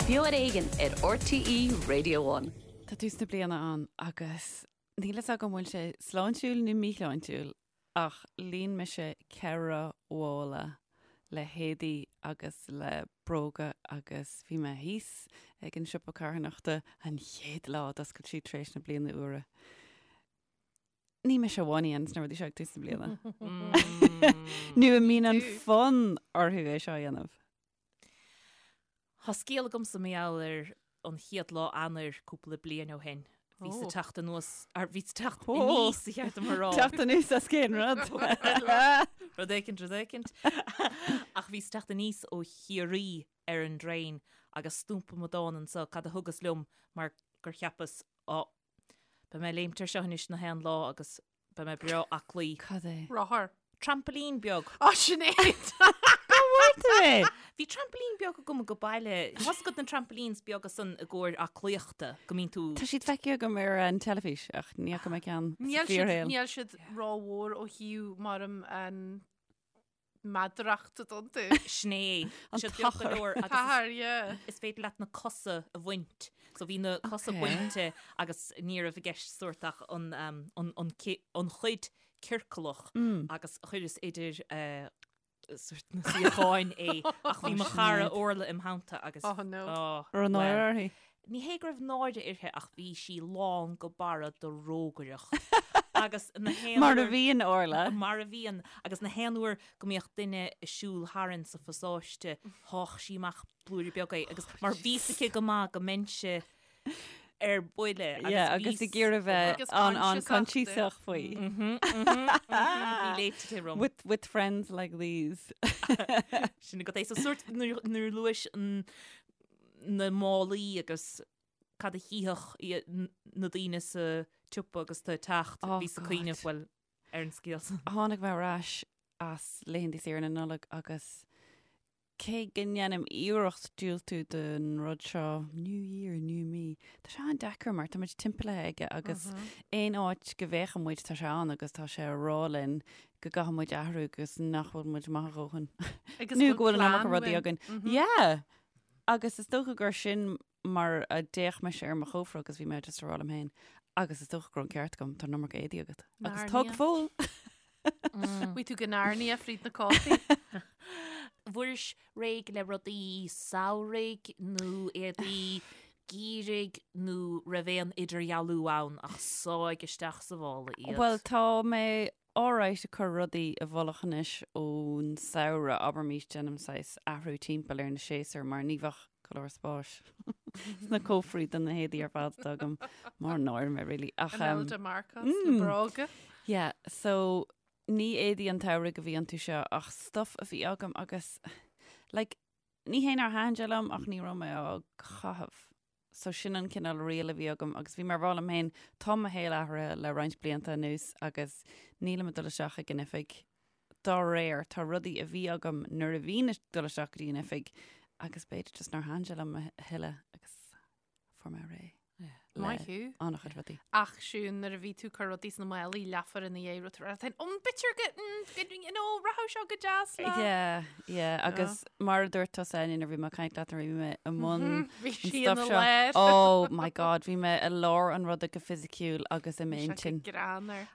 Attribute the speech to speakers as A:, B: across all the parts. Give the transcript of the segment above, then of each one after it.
A: Beo ar Éigean ar RTÉ Radio One.
B: Tá tús na bliana ann agus níl fhios agam an bhfuil sé sláintiúil nó míshláintiúil ach líon mise ceithre mhála le héadaí agus le bróga agus bhí mé thíos ag an siopa carthanachta an chéad lá a d'oscail siad tar éis na bliana úire. Ní mise amháin a dhéananns na rudaí seo ag tús na bliana. Nó a mbíonn an fonn orthu é seo a dhéanamh.
C: Tá scéal agamsa mar gheall ar an chéad lá Eanáir cúpla bliain ó shin. Bhíos ag teacht anuas, ar bhíos ag teacht aníos ba cheart dom a rá.
B: Teacht anuas as cén rud?
C: Rud éicint, rud éicint. Ach bhíos ag teacht aníos ó Chiarraí ar an dtraein agus stumpa amadán anso cad a thugas liom mar gur cheapas, á, Beidh mé ag léimt ar seo anois na haon lá agus beidh mé breá aclaí.
B: Cad é?
D: Rothar.
C: Trampoline beag.
D: Á, Sinéad!
B: Cá bhfuair tú é?
C: Bhí trampoline beag agam ag baile. Tá's agat na trampolines beaga san i gcomhair aclaíochta go mbíonn tú.
B: Tá siad feicthe agam ar an teilifís ach ní fhaca mé ceann sa
D: Níl siad,
B: fíorshaol.
D: níl siad rómhór ó thaobh mar an meadaracht atá iontu.
C: Sin é.
B: An
C: Siad beag go
B: t-achar.
C: leor agus is-
D: T-achar, yeah.
C: is féidir leat na cosa a bhaint. So bhí na cosa
B: Okay.
C: bainte agus ní raibh i gceist sórt ach an, um, an, an, ci- an chuid ciorclach agus chuireas idir eh, sórt na suíocháin é ach bhí mo chara Orla im theannta agus
D: Oh, no.
C: oh,
B: Raibh náire
C: well.
B: uirthi.
C: Ní hé go raibh náire uirthi ach bhí sí lán go barra de rógaireacht. Agus na haon
B: Mar a
C: uair-
B: bhíonn Orla.
C: Mar a bhíonn. Agus na haon uair go mbíodh duine ag siúl tharainn sa phasáiste, sháigh sí amach blúire beag é agus mar bhí 'fhios aici go maith go mbeinnse ar buile.
B: Yeah, agus ag iarraidh bheith
D: Agus
B: an an
D: coinsiasach
B: coinsiasach faoi.
C: Bhí léite te rom.
B: With, with friends like these.
C: Sin agat é. So sórt nuair nuair a luais an na málaí agus cad a chífeadh na daoine sa tsiopa agus tú ag teacht,
B: Oh
C: bhíos ag
B: God.
C: cuimhneamh, bhuel, ar an scéal san.
B: Tháinig mé ar ais as laethanta saoire na Nollag agus cé go ndéanaim iarracht diúltú don rud seo, New Year, New Me, tá sé an-deacair mar tá muid timpeallaithe aige agus aon áit go bhféachann muid tá sé ann agus tá sé ag rá linn go gcaithfidh muid athrú agus nach bhfuil muid maith a dhóthain.
D: Agus
B: Nó go bhfuil an iomarca
D: plean
B: rudaí
D: uainn.
B: againn. Yeah! Agus is dócha gur sin mar a d'fhéach mise ar mo chófra agus bhí mé just ag rá liom féin, agus is dócha go raibh an ceart agam, tá an iomarca éadaí agat. Agus tá go
D: Narnia.
B: fóill.
D: Bhí tú go Narnia fríd na cótaí.
C: Bhfuairis réidh le rudaí samhraidh nó éadaí geimhridh nó raibh aon idirdhealú ann ach sáigh isteach sa mhála iad?
B: Bhuel, tá mé alright ag cur rudaí i bhfolach anois ón samhradh, abraimís, déanaim saghas athrú timpeall ar na séasúir mar ní bheadh go leor spáis sna cófraí do na héadaí ar fad atá agam, mór an náire mé really. Ach, um,
D: Imelda Marcos le bróga.
B: yeah, so ní éadaí an tsamhraidh a bhí iontu seo ach stuff a bhí agam agus like, ní hé nár thaitin sé liom ach ní raibh mé á chaitheamh. So sin an cineál riail a bhí agam agus bhí mé ag rá liom féin, tá mo shaol athraithe le roinnt blianta anuas agus nílim ag dul isteach ag an oifig dá réir. Tá rudaí a bhí agam nuair a bhínn ag dul isteach go dtí an oifig agus b'fhéidir just nár thaitin sé liom a thuilleadh agus fuair mé réidh le
D: Maith thú.
B: an-chuid rudaí.
D: Ach Siún, nuair a bhí tú ag cur rudaí sna málaí leathuair ina dhiaidh, raibh tú ag rá, um, b'fhéidir go, mm, go, you know, rachadh seo go deas le.
B: Yeah, yeah, agus mar a dúirt tusa Áine nuair a bhí mé ag caint leat nuair a bhí mé i mbun
D: Bhí
B: an
D: sí
B: stuff
D: ina
B: seo.
D: lár.
B: Oh my God, bhí mé i lár an ruda go fisiciúil agus i
D: Bhí sé go
B: m'intinn.
D: greannmhar.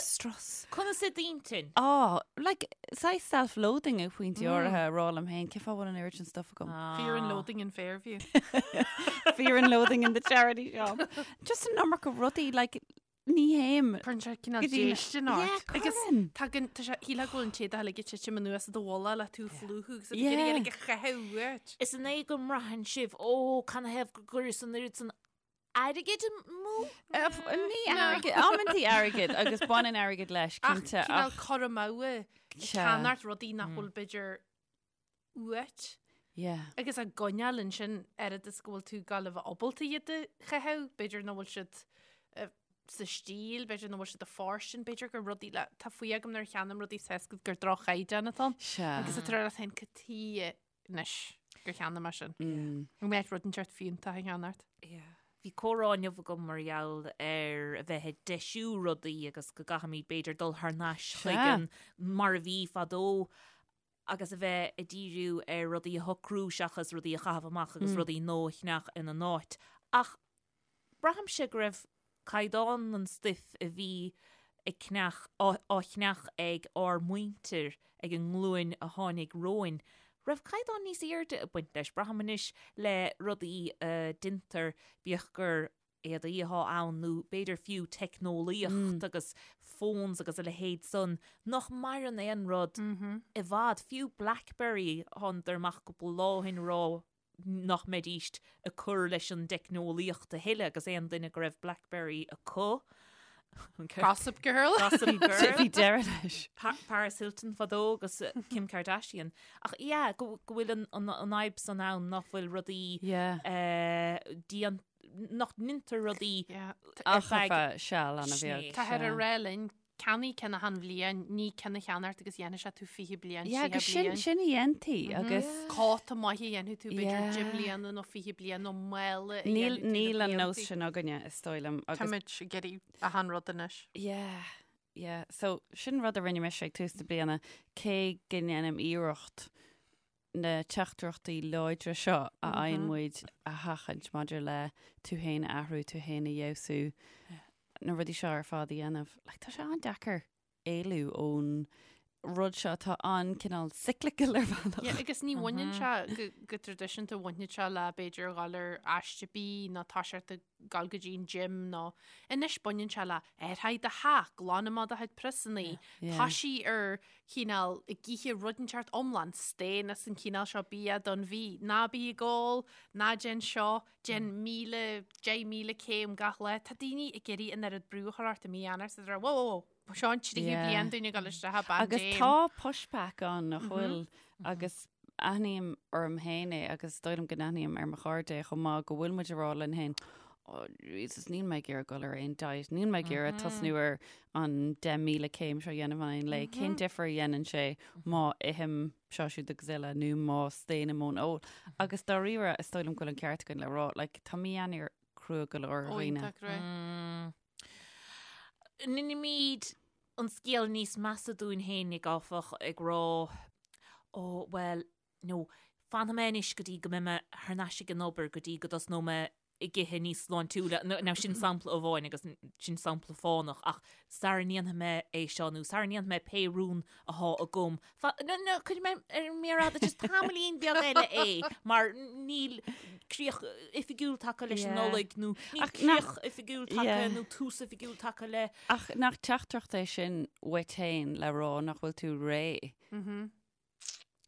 B: Strus.
C: Conas i d'intinn?
B: Oh, like, saghas self-loathing ag pointí áirithe ag rá liom féin, cén fáth a bhfuil an oiread sin stuff agam?
D: Fear and loathing in Fairview.
B: Fear and loathing in the charity shop. Just an iomarca rudaí, like, ní théim.
D: Cuireann sé cineál
B: Go dtí na-
D: déistin ort.
B: Yeah,
D: Agus
B: cuireann.
D: tagann, tá sé, shílfeá go bhfuil an t-éadach uilig ag titim anuas i do mhullach le tú ag plúchadh agus ag
B: Yeah.
D: iarraidh uilig a chaitheamh uait.
C: Is an é go mbraitheann sibh, ó, canathaobh go gcuireas an oiread san airgid amú?
B: Ní airgead, amantaí airgead agus baineann airgead leis,
D: Ach
B: cinnte.
D: cineál
B: Ach,
D: cur amú ag
B: Sea.
D: ceannacht rudaí nach bhfuil b'fhéidir uait.
B: yeah.
D: Agus á gcoinneáil ansin oiread is go bhfuil tú ag gabháil a bheith ábalta iad a chaitheamh, b'fhéidir nach bhfuil siad eh, sa stíl, b'fhéidir nach bhfuil siad i bhfóirstean, b'fhéidir gur rudaí le, tá faoi agam nuair a cheannaím rudaí is tá 'fhios agat gur droch-chaighdeán atá ann.
B: Sea.
D: Agus tá tú ag rá leat féin cad chuige anois gur cheannaigh mé sin.
B: Mm.
D: An mbeadh rud inteacht fiúntach a cheannacht?
C: Bhí comhrá inniu agam mar gheall ar a bheith ag deisiú rudaí agus go gcaithfimid b'fhéidir dul thar n-ais chuig
B: Sea.
C: an mar a bhí fadó. agus a bheith ag díriú ar rudaí a shocrú seachas rudaí a chaitheamh amach agus rudaí nua a cheannach ina n-áit. Ach braithimse go raibh caighdeán an stuif a bhí ag ceannach, á cheannach ag ár muintir, ag an nglúin a tháinig romhainn, raibh caighdeán níos airde ag baint leis. Braithim anois le rudaí a deintear, bíodh gur éadaí atá ann nó b'fhéidir fiú teicneolaíocht agus phones agus a leithéid san, nach maireann aon rud i bhfad. Fiú Blackberry, thánadar amach cúpla lá ó shin ag rá nach mbeidíst ag cur leis an dteicneolaíocht a thuilleadh agus aon duine go raibh Blackberry acu,
D: Gossip Girl.
C: Gossip Girl.
B: Bhí deireadh leis.
C: Paris Hilton fadó agus Kim Kardashian. Ach yeah, go bhfuil an fhadhb san ann nach bhfuil rudaí déanta nach ndeintear rudaí
B: ar feadh seal an-bheag.
D: Táthar ag rá linn, ceannaigh ceann achan bhliain, ní ceann a cheannacht agus dhéanfaidh sé tú 20 bliain,
B: Yeah,
D: 30
B: agus sin,
D: bliain.
B: sin a dhéantaí agus
D: Cóta maith a dhéanfaidh tú b'fhéidir
B: Yeah.
D: 10 mbliana nó 20 bliain nó mála a
B: níl,
D: dhéanfaidh tú na
B: níl an nós
D: blianta.
B: sin againne is dóigh liom agus
D: Táimid ag iarraidh achan rud anois.
B: Yeah, yeah. So sin rud a rinne mise ag tús na bliana, cé go ndéanaim iarracht na teachtaireachtaí láidre seo a fhaigheann muid a sheachaint maidir le tú féin a athrú, tú féin a fheabhsú, na rudaí seo ar fad a dhéanamh. Like, tá sé an-deacair éalú ón rud seo atá an-cineál cyclical ar bhealach.
D: Yeah, agus ní bhaineann sé go, go traidisiúnta bhaineann sé le b'fhéidir dhul ar aiste bídh nó toiseacht ag dul go dtí an gym nó anois baineann sé le athraigh do theach, glan amach do chuid priosannaí,
B: Yeah.
D: toisigh ar chineál ag ithe rud inteacht iomlán, staon as an chineál seo bia don mhí, ná bí ag ól, ná déan seo, déan 1,000, 10,000 céim gach lá. Tá daoine ag iarraidh an oiread brú a chur ort i mí Eanáir is iad ag rá, whoa, whoa, whoa, seo an tríú
B: Yeah.
D: bliain dúinn ag dul isteach i bpaindéim.
B: Agus tá pushback ann nach bhfuil agus aithním orm féin é agus is dóigh liom go n-aithním ar mo chairde é chomh maith go bhfuil muid ag rá linn féin, Oh Jesus, níl mé ag iarraidh dul ar aon diet, níl mé ag iarraidh tosnú ar an 10,000 céim seo a dhéanamh in aghaidh an lae. Cén difear a dhéanann sé má ithim seo siúd agus eile nó má staonaim ón ól? Agus dáiríre, is dóigh liom go bhfuil an ceart againn le rá, like, tá mí Eanáir crua go leor ar
D: Ó,
B: dhaoine.
D: iontach crua.
C: Ndeinimid an scéal níos measa dúinn fhéinig, áfach, ag rá, Ó, bhuel, nó, fanfaidh mé anois go dtí go mbeidh mé thar n-ais ag an obair, go dtí go dtosnóidh mé ag ithe níos sláintiúla. Now, sin sampla amháin agus sin sampla fánach, ach sara ndéanfaidh mé é seo nó sara ndéanfaidh mé pé rún athá agam, No, no, cuirfidh mé ar an méar fhada just tamaillín beag eile é mar níl críoch oifigiúil tagtha leis an Nollaig nó níl críoch oifigiúil tagtha nó tús oifigiúil tagtha le.
B: Ach nach teachtaireacht é sin uait féin le rá nach bhfuil tú réidh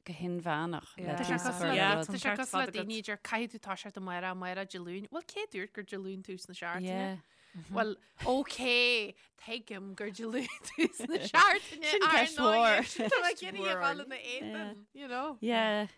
B: go hinmheánach le tús a chur le rud.
D: Tá sé cosúil le daoine a deir caithfidh tú toiseacht amárach, amárach Dé Luain. Bhuel, cé dúirt gur Dé Luain tús na seachtaine? Bhuel, ok, tuigim gur Dé Luain tús na seachtaine.
B: Sin ceist mhór.
D: Tá mé ag iarraidh a dhul ina éadan, you know.
B: Yeah.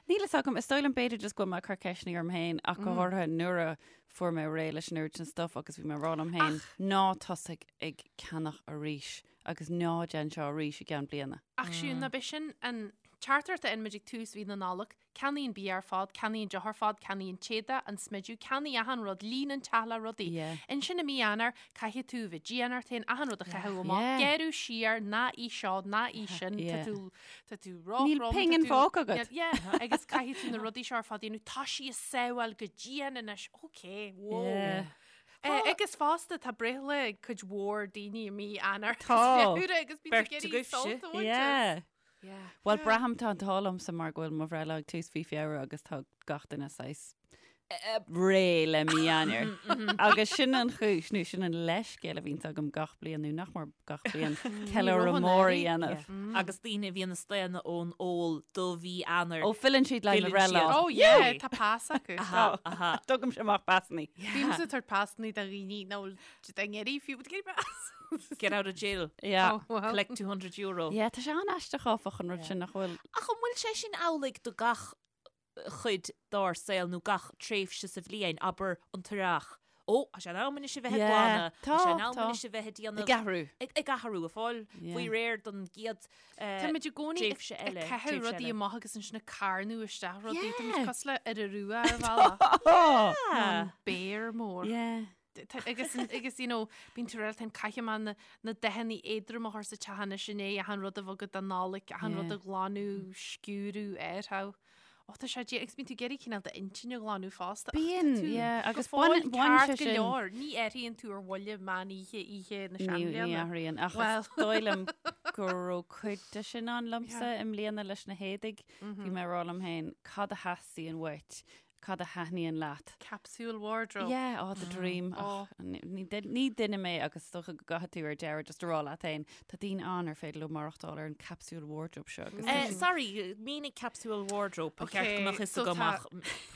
B: Níl fhios agam, is dóigh liom b'fhéidir just go bhfuil mé ag cur ceisteanna orm féin ach go háirithe nuair a fuair mé réidh leis an oiread sin stuff agus bhí mé ag rá liom féin ná tosaigh ag ceannach arís agus ná déan seo arís i gceann bliana.
D: Ach siúd, ná b'é sin an teachtaireacht a fhaigheann muid ag tús mhí na Nollag, Ceannaigh an bia ar fad, ceannaigh an deoch ar fad, ceannaigh an t-éadach, an smideadh, ceannaigh achan rud, líon an teach le rudaí.
B: Yeah.
D: Ansin i mí Eanáir, caithfidh tú a bheith dian ort féin, achan rud a chaitheamh amach,
B: Yeah.
D: gearradh siar, ná ith seo, ná ith sin, tá
B: Yeah.
D: tú, tá tú
B: Níl
D: róthrom, tá
B: pingin
D: tú-
B: fágtha agat.
D: Níl- Yeah, agus caithfidh tú na rudaí seo ar fad a dhéanamh, tá sí ag sábháil go dian anois, ok, whoa.
B: Yeah.
D: Eh, agus fosta tá breithlá ag cuid mhór daoine i mí Eanáir.
B: Tá.
D: Feabhra agus bíonn
C: Beirt
D: ag iarraidh
C: agaibhse.
D: sult a bhaint as.
B: Yeah. Bhuel, braithim tá an t-ádh liomsa mar go bhfuil mo bhreithlá ag tús mhí Feabhra agus tá gach duine saghas réidh le mí Eanáir. Agus sin an chúis, nó sin an leithscéal a bhíonns agam gach bliain, nó nach mór gach bliain, ceiliúradh mór a dhéanamh.
C: Agus daoine a bhíonn ag staonadh ón ól do mhí Eanáir.
B: Ó, filleann siad le mo
C: Filleann
B: bhreithlá.
C: siad.
D: Oh yeah, tá pas acu.
C: Aha, aha.
B: Tugaimse amach pasannaí.
D: Bímse ag tabhairt pasannaí do dhaoine nach bhfuil siad ag iarraidh fiú, but pas.
C: Get out of jail.
B: Yeah.
D: Oh, well.
C: Collect €200.
B: Yeah, tá sé an-aisteach áfach an rud sin nach bhfuil.
C: Ach an bhfuil sé sin amhlaidh do gach chuid dár saol nó gach tréimhse sa bhliain, abair an t-earrach? Ó, tá sé in am anois a bheith ag
B: Yeah,
C: glanadh, tá
B: tá,
C: sé in am
B: tá.
C: anois a bheith ag déanamh
B: Ag athrú.
C: ag, ag athrú, ag fáil
B: Yeah.
C: faoi réir don gcéad eh,
D: Táimid i gcónaí ag
C: tréimhse
D: ag
C: eile,
D: caitheamh
C: tréimhse
D: rudaí
C: eile.
D: amach agus ansin ag carnadh isteach rudaí. Táimid
B: Yeah.
D: cosúil le iora rua ar bhealach.
B: Oh!
D: Nó an béar mór.
B: Yeah.
D: Agus, agus, you know, bíonn tú réaltán caithfidh mé na, na dathanna éadroma a chur sa teach anois i ndiaidh achan rud a bheith agat don Nollaig, achan rud a ghlanadh, sciúradh, air Ó, tá sé dé, agus bíonn tú ag iarraidh cineál d'intinn a ghlanadh fosta. Ach tá
B: Bíonn,
D: tú
B: yeah,
D: go
B: agus
D: fóill
B: baineann, baineann
D: ceart
B: sé
D: go
B: sin.
D: leor. Ní athraíonn tú ar bhuille meán oíche, oíche na
B: Ní, ní
D: seanbhliana.
B: athraíonn, ach
D: Well.
B: is dóigh liom go raibh cuid de sin ann liomsa
D: Yeah.
B: i mbliana leis na héadaigh. Bhí mé ag rá liom féin, cad a theastaíonn uait? Cad a thaitníonn leat?
D: Capsule wardrobe.
B: Yeah, oh, the dream.
D: Oh.
B: Ach, ní ní duine mé agus is dócha go gcaithfidh tú ar deireadh just a rá leat féin, tá daoine ann ar féidir leo maireachtáil ar an capsule wardrobe seo agus tá
C: Eh,
B: siad-
C: sorry, mínigh capsule wardrobe, ba cheart go
D: Okay,
C: mbeadh fhios
D: so
C: agam
D: tá
C: ach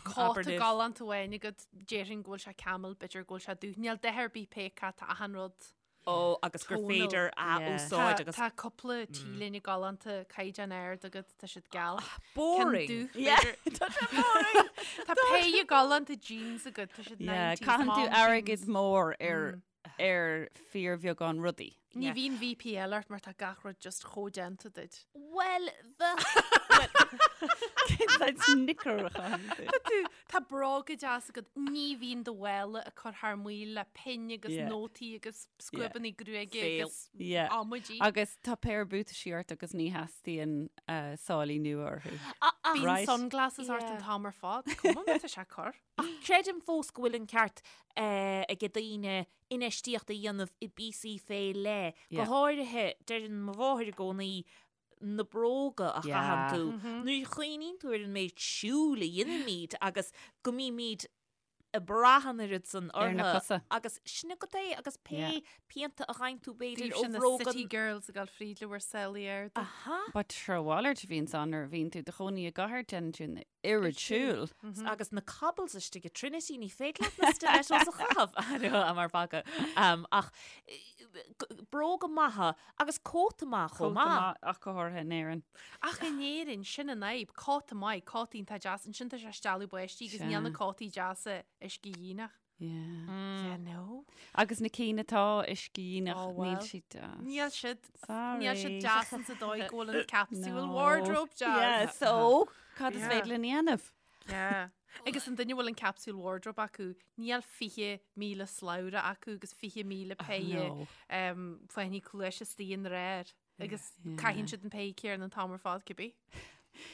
D: Cóta
C: abair libh.
D: galánta amháin agat, déarfainn go bhfuil sé camel, b'fhéidir go bhfuil sé dubh. Níl dath ar bith pé acu, tá achan rud.
C: Ó, agus gur
D: Tonal.
C: féidir a
B: Yeah.
C: úsáid agus
D: Tá cúpla T-léine galánta caighdeán ard agat, tá siad geal.
C: boring.
D: Ceann dubh,
B: Yeah,
D: b'fhéidir.
B: tá sé boring.
D: Tá péire galánta jeans agat, tá siad
B: Yeah,
D: 90s
B: caitheann tú
D: mom
B: airgead
D: jeans.
B: mór ar ar fíorbheagán rudaí.
D: Ní
C: Yeah.
D: bhíonn VPL ort mar tá gach rud just chomh déanta duit.
C: Well, bheadh
B: Snicker a chaitheann tú.
D: Tá tú, tá bróga deas agat, ní bhíonn do mhála ag cur thar maoil le pinn agus
B: Yeah.
D: nótaí agus scuabanna gruaige
C: Fail.
D: agus
B: Yeah.
D: amaidí.
B: Agus tá péire buataisí ort agus ní theastaíonn uh, sálaí nua orthu.
D: Bíonn
B: Right.
D: sunglasses ort an
C: Yeah.
D: t-am ar fad. Cuma má tá sé cur.
C: Creidim fós go bhfuil an ceart eh, ag daoine infheistíocht a dhéanamh i bpíosaí fé leith. Go
B: Yeah.
C: háirithe, deireann mo mháthair i gcónaí na bróga a chaitheann
B: Yeah.
C: tú. Nuair a chuimhníonn tú ar an méid siúil a dhéanaimid agus go mbímid ag brath an oiread san
B: Ar na
C: orthu.
B: cosa.
C: Agus sin agat é agus pé
B: Yeah.
C: pianta a gheibheann tú b'fhéidir
D: Daoibhse
C: ó
D: na
C: bhróga
D: City Girls ag dul fríd le bhur sálaí arda.
C: Aha.
B: But sure mhalairt a bhíonn ann nuair a bhíonn tú i do chónaí i gcathair déanann tú an oiread siúil.
C: Agus na cobbles istigh i Trinity ní féidir leat na stilettos a chaitheamh mar bhaga. Um, ach eh, g- bróga maithe agus cóta maith chomh
B: Cóta
C: maith.
B: maith ach go háirithe in Éirinn.
D: Ach in Éirinn, sin an fhadhb, cóta maith, cótaí atá deas, ansin tá sé stealladh báistí agus níl na
B: Sea.
D: cótaí deasa uiscedhíonach.
B: Yeah.
D: Yeah, no.
B: Agus na cinn atá uiscedhíonach
D: Oh,
B: níl
D: well.
B: siad deas.
D: Níl siad
B: Sorry.
D: níl siad deas insa dóigh go bhfuil an capsule
B: No.
D: wardrobe deas.
B: Yeah, so cad is
D: Yeah.
B: féidir linn a dhéanamh?
D: Yeah. Agus an duine a bhfuil an capsule wardrobe acu, níl 20,000 slabhra acu agus 20,000 péire
B: No.
D: um, fáinní cluaise istigh ina réir. Agus
B: Yeah.
D: caitheann siad an péire céanna an t-am ar fad cibé.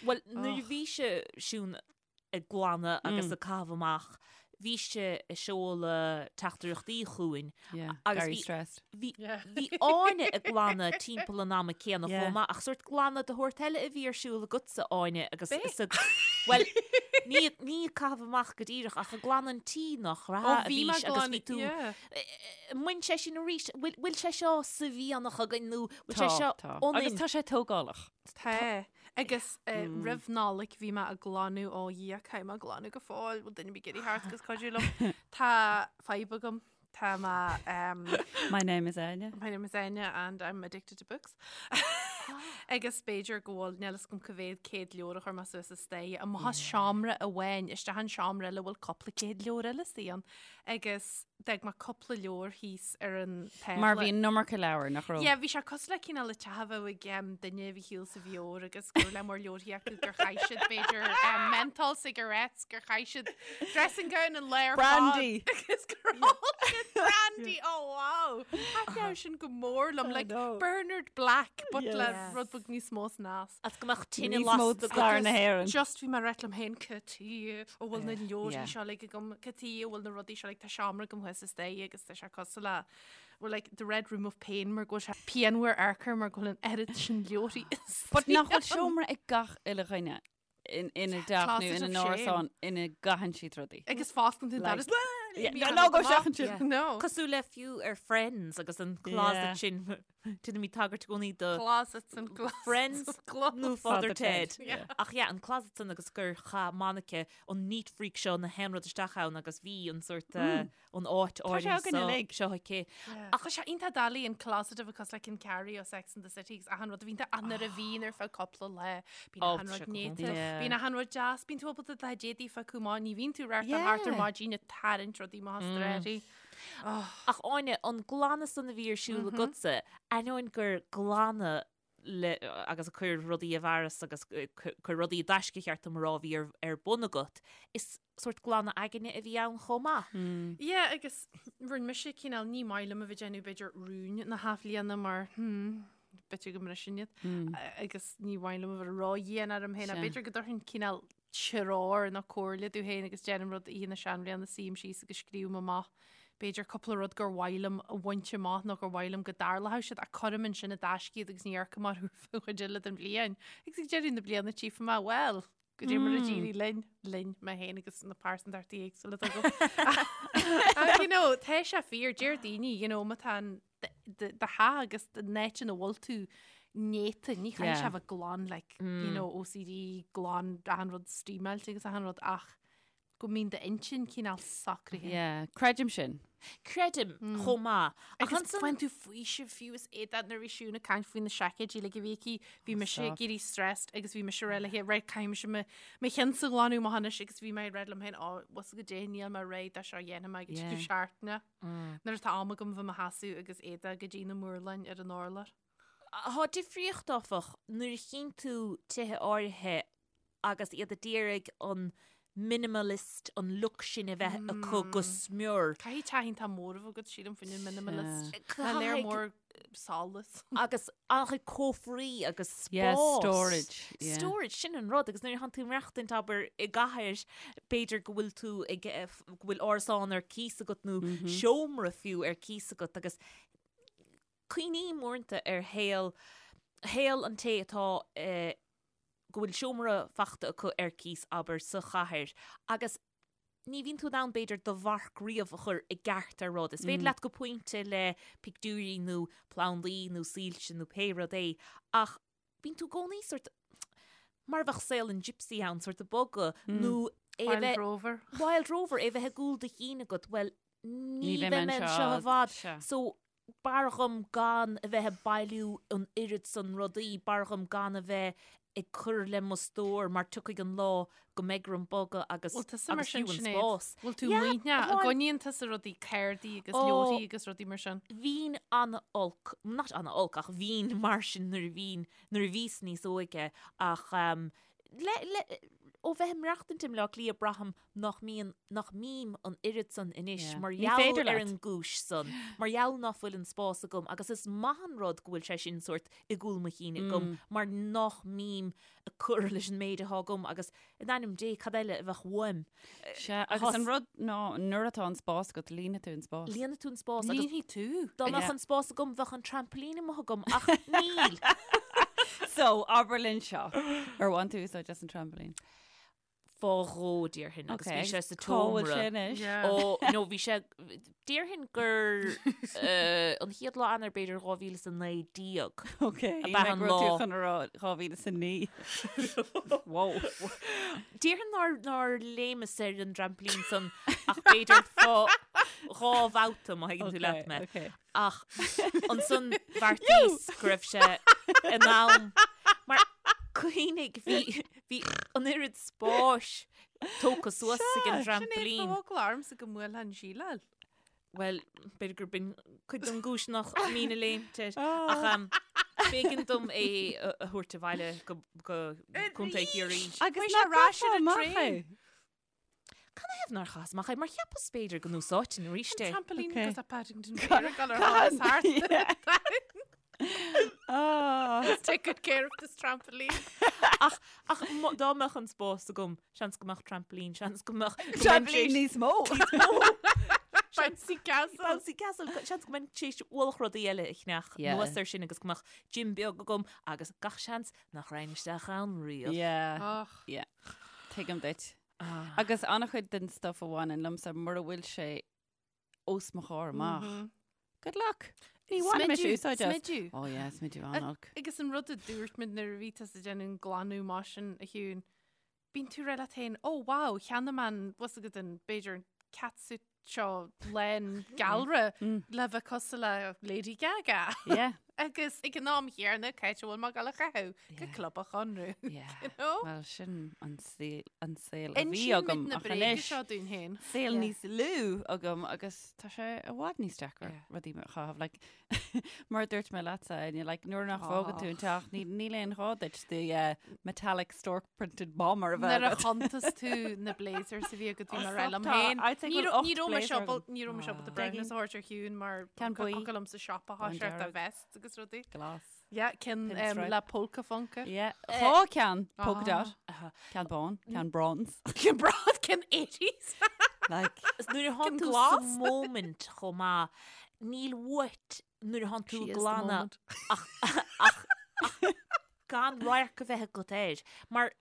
C: Well, nuair a bhí sé Siún ag glanadh agus ag caitheamh amach, bhí sé ag seoladh teachtaireachtaí chugainn
B: Yeah,
C: agus
B: very
C: bhí
B: stressed.
C: bhí
D: Yeah.
C: bhí Áine ag glanadh timpeall an ama céanna
B: Yeah.
C: chomh maith ach sórt glanadh de shórt eile a bhí ar siúl agatsa Áine agus
D: B'é?
C: is ag Well, ní ní ag caitheamh amach go díreach ach ag glanadh an tí nach
D: Ó
C: raibh a
D: bhí
C: bhí
D: mé
C: agus bhí
D: glanadh
C: tú
D: yeah.
C: Bhain sé sin arís, bhfuil bhfuil sé seo sa mhianach againn nó bhfuil sé
B: Tá,
C: seo
B: tá. Agus
C: ionainn?
B: tá sé tógálach.
D: Tá. Agus roimh Nollaig bhí mé ag glanadh ó Dhia caithfidh mé glanadh go fóill, bhfuil duine ar bith ag iarraidh theacht agus cuidiú liom. Tá fadhb agam. Tá mé um,
B: My name is Áine.
D: My name is Áine and I'm addicted to books. Agus b'fhéidir go bhfuil níl fhios agam cá mhéad céad leabhar a chuir mé suas an staighre. Amach as seomra amháin isteach an seomra eile a bhfuil cúpla céad leabhar eile istigh ann. Agus d'fhág mé cúpla leabhar thíos ar an tábla.
B: Mar bhí an iomarca leabhar, nach raibh?
D: Yeah, bhí sé cosúil le cineál le teach a bheadh ag um, duine a bhí thall sa bheoir agus go raibh lear mór leabharthaí acu gur chaith siad b'fhéidir um, menthol cigarettes gur chaith siad dressing gown an lae ar fad
B: Brandy!
D: agus gur ól siad brandy! Oh wow! Thaitneodh sin go mór liom,
B: I
D: like
B: know.
D: Bernard Black but le
B: Yes.
D: rud beag níos mó snas.
C: As go mbeadh tine
B: Níos mó
C: lasta
B: stair na
C: agat.
B: hÉireann.
D: Just bhí mé ag rá liom féin cad chuige a bhfuil na leabharthaí
B: Yeah.
D: seo uilig agam, cad chuige a bhfuil na rudaí seo like tá seomra agam thuas an staighre agus tá sé cosúil le we're like the red room of pain mar go bhfuil sé pianmhar amharc air mar go bhfuil an oiread sin leabharthaí
B: But nach bhfuil seomra ag gach uile dhuine in ina dteach nó
D: Closet
B: ina
D: of
B: n-árasán ina gcaitheann siad rudaí.
D: Agus fosclaíonn tú an
B: Like-
D: doras.
B: Yeah,
D: Bíonn
B: no,
D: an
B: no, go
D: rud amach.
B: seachain sin.
D: No.
C: Cosúil le fiú ar Friends agus an closet
B: Yeah.
C: sin Déanaimid tagairt i gcónaí do
D: Closets and closets
C: Friends
D: of clothes.
C: nó Father
B: Father
C: Ted.
B: Ted, yeah.
C: Ach yeah, an closet san agus gur chaith Monica an neat freak seo na haon rud isteach ann agus bhí an sort an áit
B: Tá sé
C: áirithe
B: againn
C: seo
B: uilig.
C: seo aici.
D: Ach tá sé iontach doiligh an closet a bheith cosúil le Ken Carrie ó Sex and the City agus achan rud a bhíonn ann nuair a bhíonn ar feadh cúpla lá. Bíonn
C: Ó,
D: achan
C: tá
D: rud
C: sé go
D: néata,
C: hiontach.
B: Yeah.
D: bíonn achan rud deas, bíonn tú ábalta do d'éadaí a phiocadh amach, ní bhíonn tú ag reáchtáil thart ar
B: Yeah.
D: maidin ag tarraingt rudaí amach as dréirí.
C: Ach Áine, an glanadh san a bhí ar siúl agatsa, ainneoin gur glanadh le agus ag cur rudaí i bhfearas agus cur rudaí i dtaisce cheart dom a rá a bhí ar, ar bun agat, is. sórt glanadh aigne a bhí ann chomh maith.
D: Yeah, agus rinne mise cineál ní maith liom a bheith déanamh b'fhéidir rúin na hathbhliana mar hmm, b'fhéidir go mbriseann iad agus ní mhaith liom a bheith ródhian orm féin b'fhéidir go dtabharfainn cineál treoir nó comhairle domh féin agus déanaim rud oíche na seanbhliana suím síos agus scríobhaim amach b'fhéidir cúpla rud gur mhaith liom a bhaint amach nó gur mhaith liom go dtarlódh siad ach cuirim ansin i dtaisce iad agus ní amharcaim orthu ar feadh an chuid eile den bhliain. Agus ag deireadh na bliana tchífidh mé, bhuel, Goidé mar a d'éirigh linn, linn, mé féin agus na pearsantachtaí éagsúla atá agam. Ach, you know, tá sé fíor, deir daoine, you know, má tá an do theach agus an áit ina bhfuil tú néata, ní chaithfidh sé bheith glan, like, you know, OCD, glan, achan rud steamáilte agus achan rud, ach go mbíonn d'intinn cineál socraithe.
B: Yeah, creidim sin.
C: Creidim chomh maith.
D: Ach Agus ansan- faigheann tú faoiseamh fiú is éadaí nuair a bhí Siún ag caint faoi na seaicéidí like a bhí aici, bhí mise ag éirí stressed agus bhí mise ag rá léi, right, caithfidh mise mo mo chinnsa a ghlanadh amach anois agus bhí mé ag rá liom féin, ó, bhfuil goidé níl mé réidh dó seo a dhéanfaidh mé go dtí Yeah. seachtaine. Nuair atá am agam bheith i mo sheasamh agus éadaí go dtí na murláin ar an urlár.
C: Tá difríocht áfach nuair a chíonn tú tithe áirithe agus iad a d'iarraidh an minimalist, an look sin a bheith acu go smior.
D: Caithfidh teach iontach mór a bheith agat sílim faoin minimalist. Tá léar mór solas.
C: Agus an-chuid cófraí agus spás.
B: Yeah, storage.
C: Yeah. Storage, sin an rud. Agus nuair a thánn tú ag maireachtaint abair i gcathair, b'fhéidir go bhfuil tú ag, go bhfuil árasán ar cíos agat nó seomra fiú ar cíos agat agus cuimhním uaireanta ar shaol, shaol an té atá i, go bhfuil seomra fachta acu ar cíos, abair, sa chathair agus ní bhíonn tú in ann, b'fhéidir, do mharc riamh a chur i gceart ar rud. Is féidir leat go pointe le pictiúirí nó plandaí nó soilse nó pé rud é ach bíonn tú i gcónaí sórt, mar a bheadh saol an gypsy ann, sórt ag bogadh nó
D: é a bheith... Wild Rover.
C: Wild Rover, é a bheith i gcúl do chinn agat, bhuel, ní bheidh mé anseo i bhfad. So, b'fhearr dhom gan a bheith ag bailiú an oiread san rudaí, b'fhearr dhom gan a bheith ag cur le mo stór mar tiocfaidh an lá go mbeidh orm bogadh agus
D: Bhfuil tusa mar
C: agus
D: sin
C: fiú an
D: Sinéad?
C: spás.
D: Bhfuil tú
C: Yeah,
D: maoithneach? An
C: bhuel-
D: gcoinníonn tusa rudaí cártaí agus
C: Ó.
D: leabharthaí agus rudaí mar sin?
C: Bhínn an-olc, not an-olc ach bhínn mar sin nuair a bhínn, nuair a bhíos níos óige ach ehm, le, le, ó bheith ag maireachtaint i mBleá Cliath braithim nach mbíonn, nach mbím an oiread san anois
B: Yeah.
C: mar
B: Ní
C: gheall
B: féidir
C: ar
B: leat.
C: an gcúis san, mar gheall ná fuil an spás agam agus is maith an rud go bhfuil sé sin sórt i gcúl mo chinn agam mm. mar nach mbím ag cur leis an méid atá agam agus in ainm Dé cad eile a bheadh uaim.
B: Sea, agus an rud ná nuair atá an spás agat líonfaidh tú an spás.
C: Líonfaidh tú an spás agus
D: Líonfaidh tú.
C: dá mbeadh
B: Yeah.
C: an spás agam bheadh an trampoline amuigh agam ach níl.
B: So, abair linn seo. Ar bhain tú úsáid as an trampoline?
C: Fá dhó déarfainn agus bhí sé sa
B: Cá bhfuil
C: tseomra.
B: sé anois?
D: Yeah.
C: Ó, nó bhí sé, déarfainn gur eh, an chéad lá Eanáir b'fhéidir 2019.
B: Ok,
C: Ab ea an
B: go raibh tú
C: lá.
B: chun a rá 2009. Wow.
C: Déarfainn nár, nár léimeas ar an dtrampolín san ach b'fhéidir fá dhá bhabhta má thuigeann tú leat mé.
B: Okay.
C: Ach ansan bheartaíos go raibh sé in am mar cuimhnigh bhí bhí an oiread spáis tógtha suas ag an
D: Sinéad,
C: dtrampolín.
D: tá eagla ormsa go mbuailfeá an tsíleáil.
C: Bhuel, b'fhéidir gur b'in cuid den gcúis nach mbínn ag léimt air. Ach um, b'éigean dom é a a thabhairt abhaile go go Contae Chiarraí.
B: Agus
D: Chuaigh sé ar ais ar an traein.
C: Canathaobh nár chaitheas amach é? Mar cheapas b'fhéidir go n-úsáidfinn arís é.
D: Trampoline
B: Okay.
D: goes up Paddington Bear ag dul ar thuras thart.
B: Ah.
D: Take good care of this trampoline.
C: Ach ach mo- dá mbeadh an spás agam, seans go mbeadh trampoline, seans go mbeadh go mbeinn
B: Trampoline
C: tar éis-
B: níos mó.
D: Bouncy castle.
C: Bouncy castle, seans go mbeinn tar éis ualach rudaí eile a cheannach
B: Yeah.
C: anuas air sin agus go mbeadh gym beag agam agus gach seans nach raghainn isteach ann riamh.
B: Yeah.
D: Och.
B: Yeah. Tuigim duit. Agus an-chuid den stuff a bhaineann liomsa mura bhfuil sé os mo chomhair amach. Good luck! Ní bhainim mise úsáid as.
D: Smidiú.
B: Oh yeah, smidiú an-olc.
D: Agus an rud a dúirt muid nuair a bhí tusa ag déanamh an glanadh mar sin a Shiún, bíonn tú ag rá leat féin, oh wow, cheannaigh mé an, bhfuil a fhios agat an, b'fhéidir an catsuit seo lán galra le bheith cosúil le Lady Gaga.
B: Yeah.
D: Agus ag an am chéanna cá háit a bhfuil mé ag dul á chaitheamh go Club an Chonradh.
B: Yeah.
D: You know?
B: Well, sin an saol an saol a bhí
D: Insíonn
B: agam
D: muid na
B: ach
D: bréaga
B: anois
D: seo dúinn féin.
B: saol
C: Yeah.
B: níos lú agam agus tá sé i bhfad níos deacra
C: Yeah.
B: rudaí a chaitheamh. Like, mar a dúirt mé leatsa, Áine, like, nuair nach bhfágann tú an teach, ní- níl aon ghá duit the uh, metallic stork printed bomber a bheith
D: Nuair a
B: agat.
D: chuntas tú na blazers a bhí agat bhí mé ag rá liom
B: Tá,
D: féin.
B: I'd say
D: Ní
B: go bhfuil
D: raibh- ní
B: ocht
D: raibh mé
B: blazer
D: siopa-
B: agam.
D: ní raibh mé siopa
C: Ah.
D: breithiúnas a thabhairt ar Shiún mar
B: Ceann buí.
D: Thug liom sa siopa
B: Bán
D: thá sé
B: dearg.
D: vests agus rudaí.
B: Glas.
D: Yeah, ceann um,
B: Pinstripe.
D: le polka funka.
B: Yeah. Dhá ceann polka
D: Ah.
B: dot. Ceann bán, ceann bronze.
D: Ceann bronze, ceann 80s.
B: Like,
C: Is nuair a thánn
D: Ceann
C: tú sa
D: glas.
C: moment chomh maith, níl uait nuair a thánn tú
D: She
C: ag
D: is the
C: glanadh
D: moment.
C: ach ach ach gan radharc a bheith agat air. Mar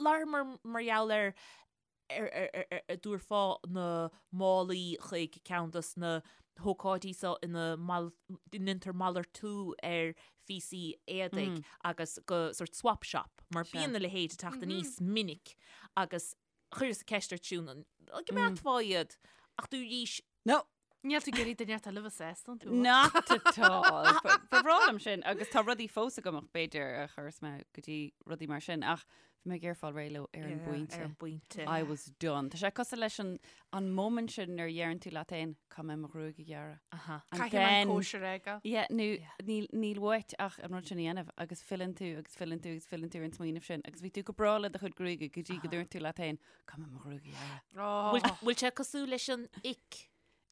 C: labhair mar mar gheall ar ar ar ar ar ar dtabharfá na málaí chuig ceann dos na hócáidí seo ina mal ndéantar malartú ar phíosaí éadaigh agus go sort swap shop mar bíonn a leithéid ag teacht aníos minic agus chuireas ceist ort Siún an gcoimeádfá iad ach dúraís
B: no,
D: Níl tú ag iarraidh duine eile a bheith sásta iontu.
B: Not at all. Ba bhreá liom sin agus tá rudaí fós agam ach b'fhéidir a chuireas mé go dtí rudaí mar sin ach bhí mé ag iarraidh fáil réidh leo ar an bpointe.
C: Ar an bpointe.
B: I was done. Tá sé cosúil leis an an moment sin nuair a dheireann tú leat féin caithfidh mé mo ghruaig a ghearradh.
C: Aha.
B: And
D: Caithfidh mé an
B: then-
D: cóisir a fhágáil.
B: Yeah, nó níl níl uait ach an rud sin a dhéanamh agus filleann tú agus filleann tú agus filleann tú ar an smaoineamh sin agus bhí tú go breá le do chuid gruaige go dtí go dúirt tú leat féin caithfidh mé mo ghruaig a ghearradh.
D: Oh.
C: Bhfuil bhfuil sé cosúil leis an ick?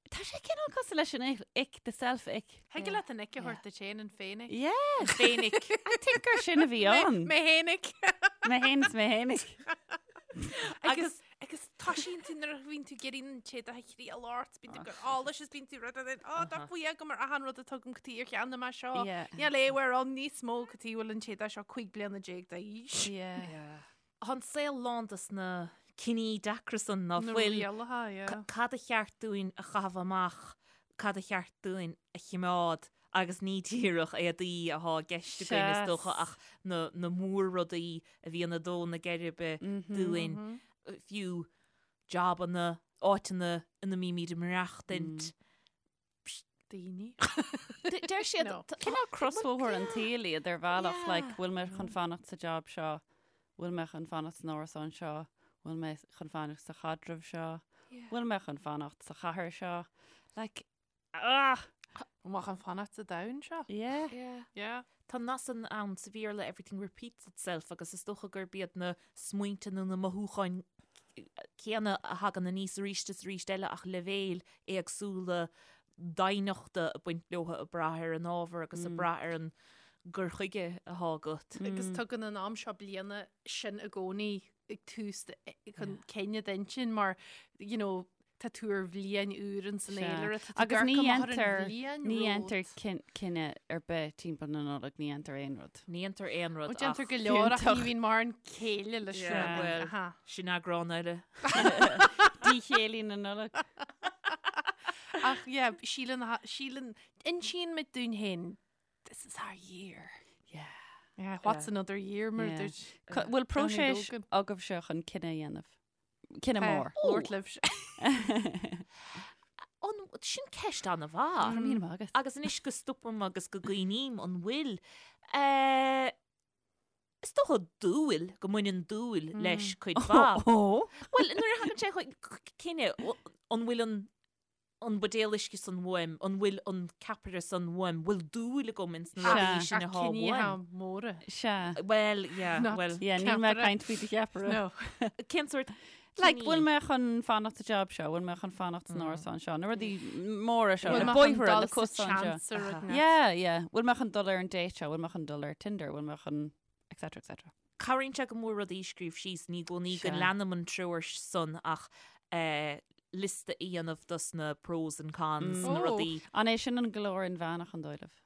B: Tá sé cineál cosúil leis an ick, the self ick.
D: Thig leat an ick a thabhairt duit féin an féin-ick.
B: Yeah.
C: Féin-ick.
B: I think gur sin a bhí ann.
D: Mé fhéinig.
B: Mé fhéin is mé fhéinig.
D: Agus agus toisíonn tú nuair a bhíonn tú ag iarraidh an t-éadach a thriail ort, bíonn tú ag cur allais is bíonn tú rud ar á tá faoi agam ar achan rud a tugaim go tí ar cheann mé seo.
B: Yeah.
D: Níl aon uair ann níos mó go tí bhfuil an t-éadach seo 15 bliana d'aois.
B: Yeah.
C: Tá an saol lán dos na cinní deacra san ná
D: Na
C: fuil.
D: rialacha, yeah.
C: Cad a cheart dúinn a chaitheamh amach, cad a cheart dúinn a chimeád agus ní díreach éadaí athá i gceist againn is dócha
B: Seas.
C: ach na, na mór-rudaí a bhíonn ag dó na geirbe dúinn, fiú jabanna, áiteanna ina mbímid ag maireachtaint.
D: Daoine.
C: Deir siad
D: No.
B: Cineál crosbhóthar an tsaoil iad ar bhealach,
C: Yeah.
B: like, bhfuil mé chun fanacht sa job seo, bhfuil mé chun fanacht san árasán seo, bhfuil mé chun fanacht sa chaidreamh seo, bhfuil mé chun fanacht sa chathair seo. Like, ah!
D: An bhfuil chun fanacht sa domhan seo?
B: Yeah.
C: Yeah.
D: Yeah.
C: Tá nath san ann sa Bhéarla everything repeats itself agus is dócha gurb iad na smaointe nó na mothúcháin céanna a thagann aníos arís is arís eile ach leibhéil éagsúla doimhneachta ag baint leo ag brath ar an ábhar agus ag brath ar an gcur chuige atá agat.
D: Agus tugann an am seo bliana sin i gcónaí ag tús chun cinneadh d'intinn mar you know, tá tú ar bhliain úr in san
B: Sea.
D: fhéilire, tá tú
B: Agus
D: ag
B: ní
D: amach ar an
B: dhéantar-
D: bhliain
B: Ní
D: romhat.
B: dhéantar cinneadh ar bith timpeall na Nollag, ní dhéantar aon rud.
C: Ní dhéantar aon rud
D: Ó déantar
C: ach
D: go leor ach ní
B: fiúntach.
D: bhíonn mórán céille leis
C: Yeah,
D: sin.
C: well.
D: Aha.
C: sin eagrán eile.
B: Díchéillí na Nollag.
D: Ach yeah, síleann síleann insíonn muid dúinn féin this is our year.
B: Yeah.
D: Yeah, what's another year mar
B: Yeah.
D: dúirt
B: Bhfuil próiseas
D: Logan.
B: agaibhse chun cinneadh a dhéanamh? Cinneadh mór.
D: Lord libh.
C: An sin ceist an-mhaith.
B: Go raibh míle maith agat.
C: Agus anois go stopaim agus go gcuimhním an bhfuil. Eh, Is dócha dúil go mbaineann dúil leis cuid mhaith.
B: Ó.
C: Well, nuair a thagann sé chuig cinneadh, an bhfuil an an buidéal uisce san uaim, an bhfuil an ceapaire san uaim, bhfuil dúil agam ins na
B: Sea.
C: rudaí sin atá
D: Cinní
C: uaim.
D: móra.
B: Sea.
C: Well, yeah,
D: Not-
C: well,
B: Yeah, níl mé
D: Ceapaire.
B: caint faoi do cheapaire.
D: No.
C: cén sórt
B: Like,
C: cinní?
B: bhfuil mé chun fanacht sa job seo, bhfuil mé chun fanacht san árasán seo, na rudaí móra seo,
D: Bhfuil
B: na
D: mé chun
B: bóithre,
D: dul
B: na
D: sa
B: cosáin seo.
D: seans ar rud na-
B: Yeah, yeah. Bhfuil mé chun dul ar an date seo, bhfuil mé chun dul ar Tinder, bhfuil mé chun etc etc.
C: Cabhraíonn sé go mór rudaí a scríobh síos, ní i gcónaí go
B: Sea.
C: leanaim an treoir san ach eh, liosta a dhéanamh dos na pros and cons, na
D: Oh.
C: rudaí.
B: An é sin an glór inmheánach an dóigh libh?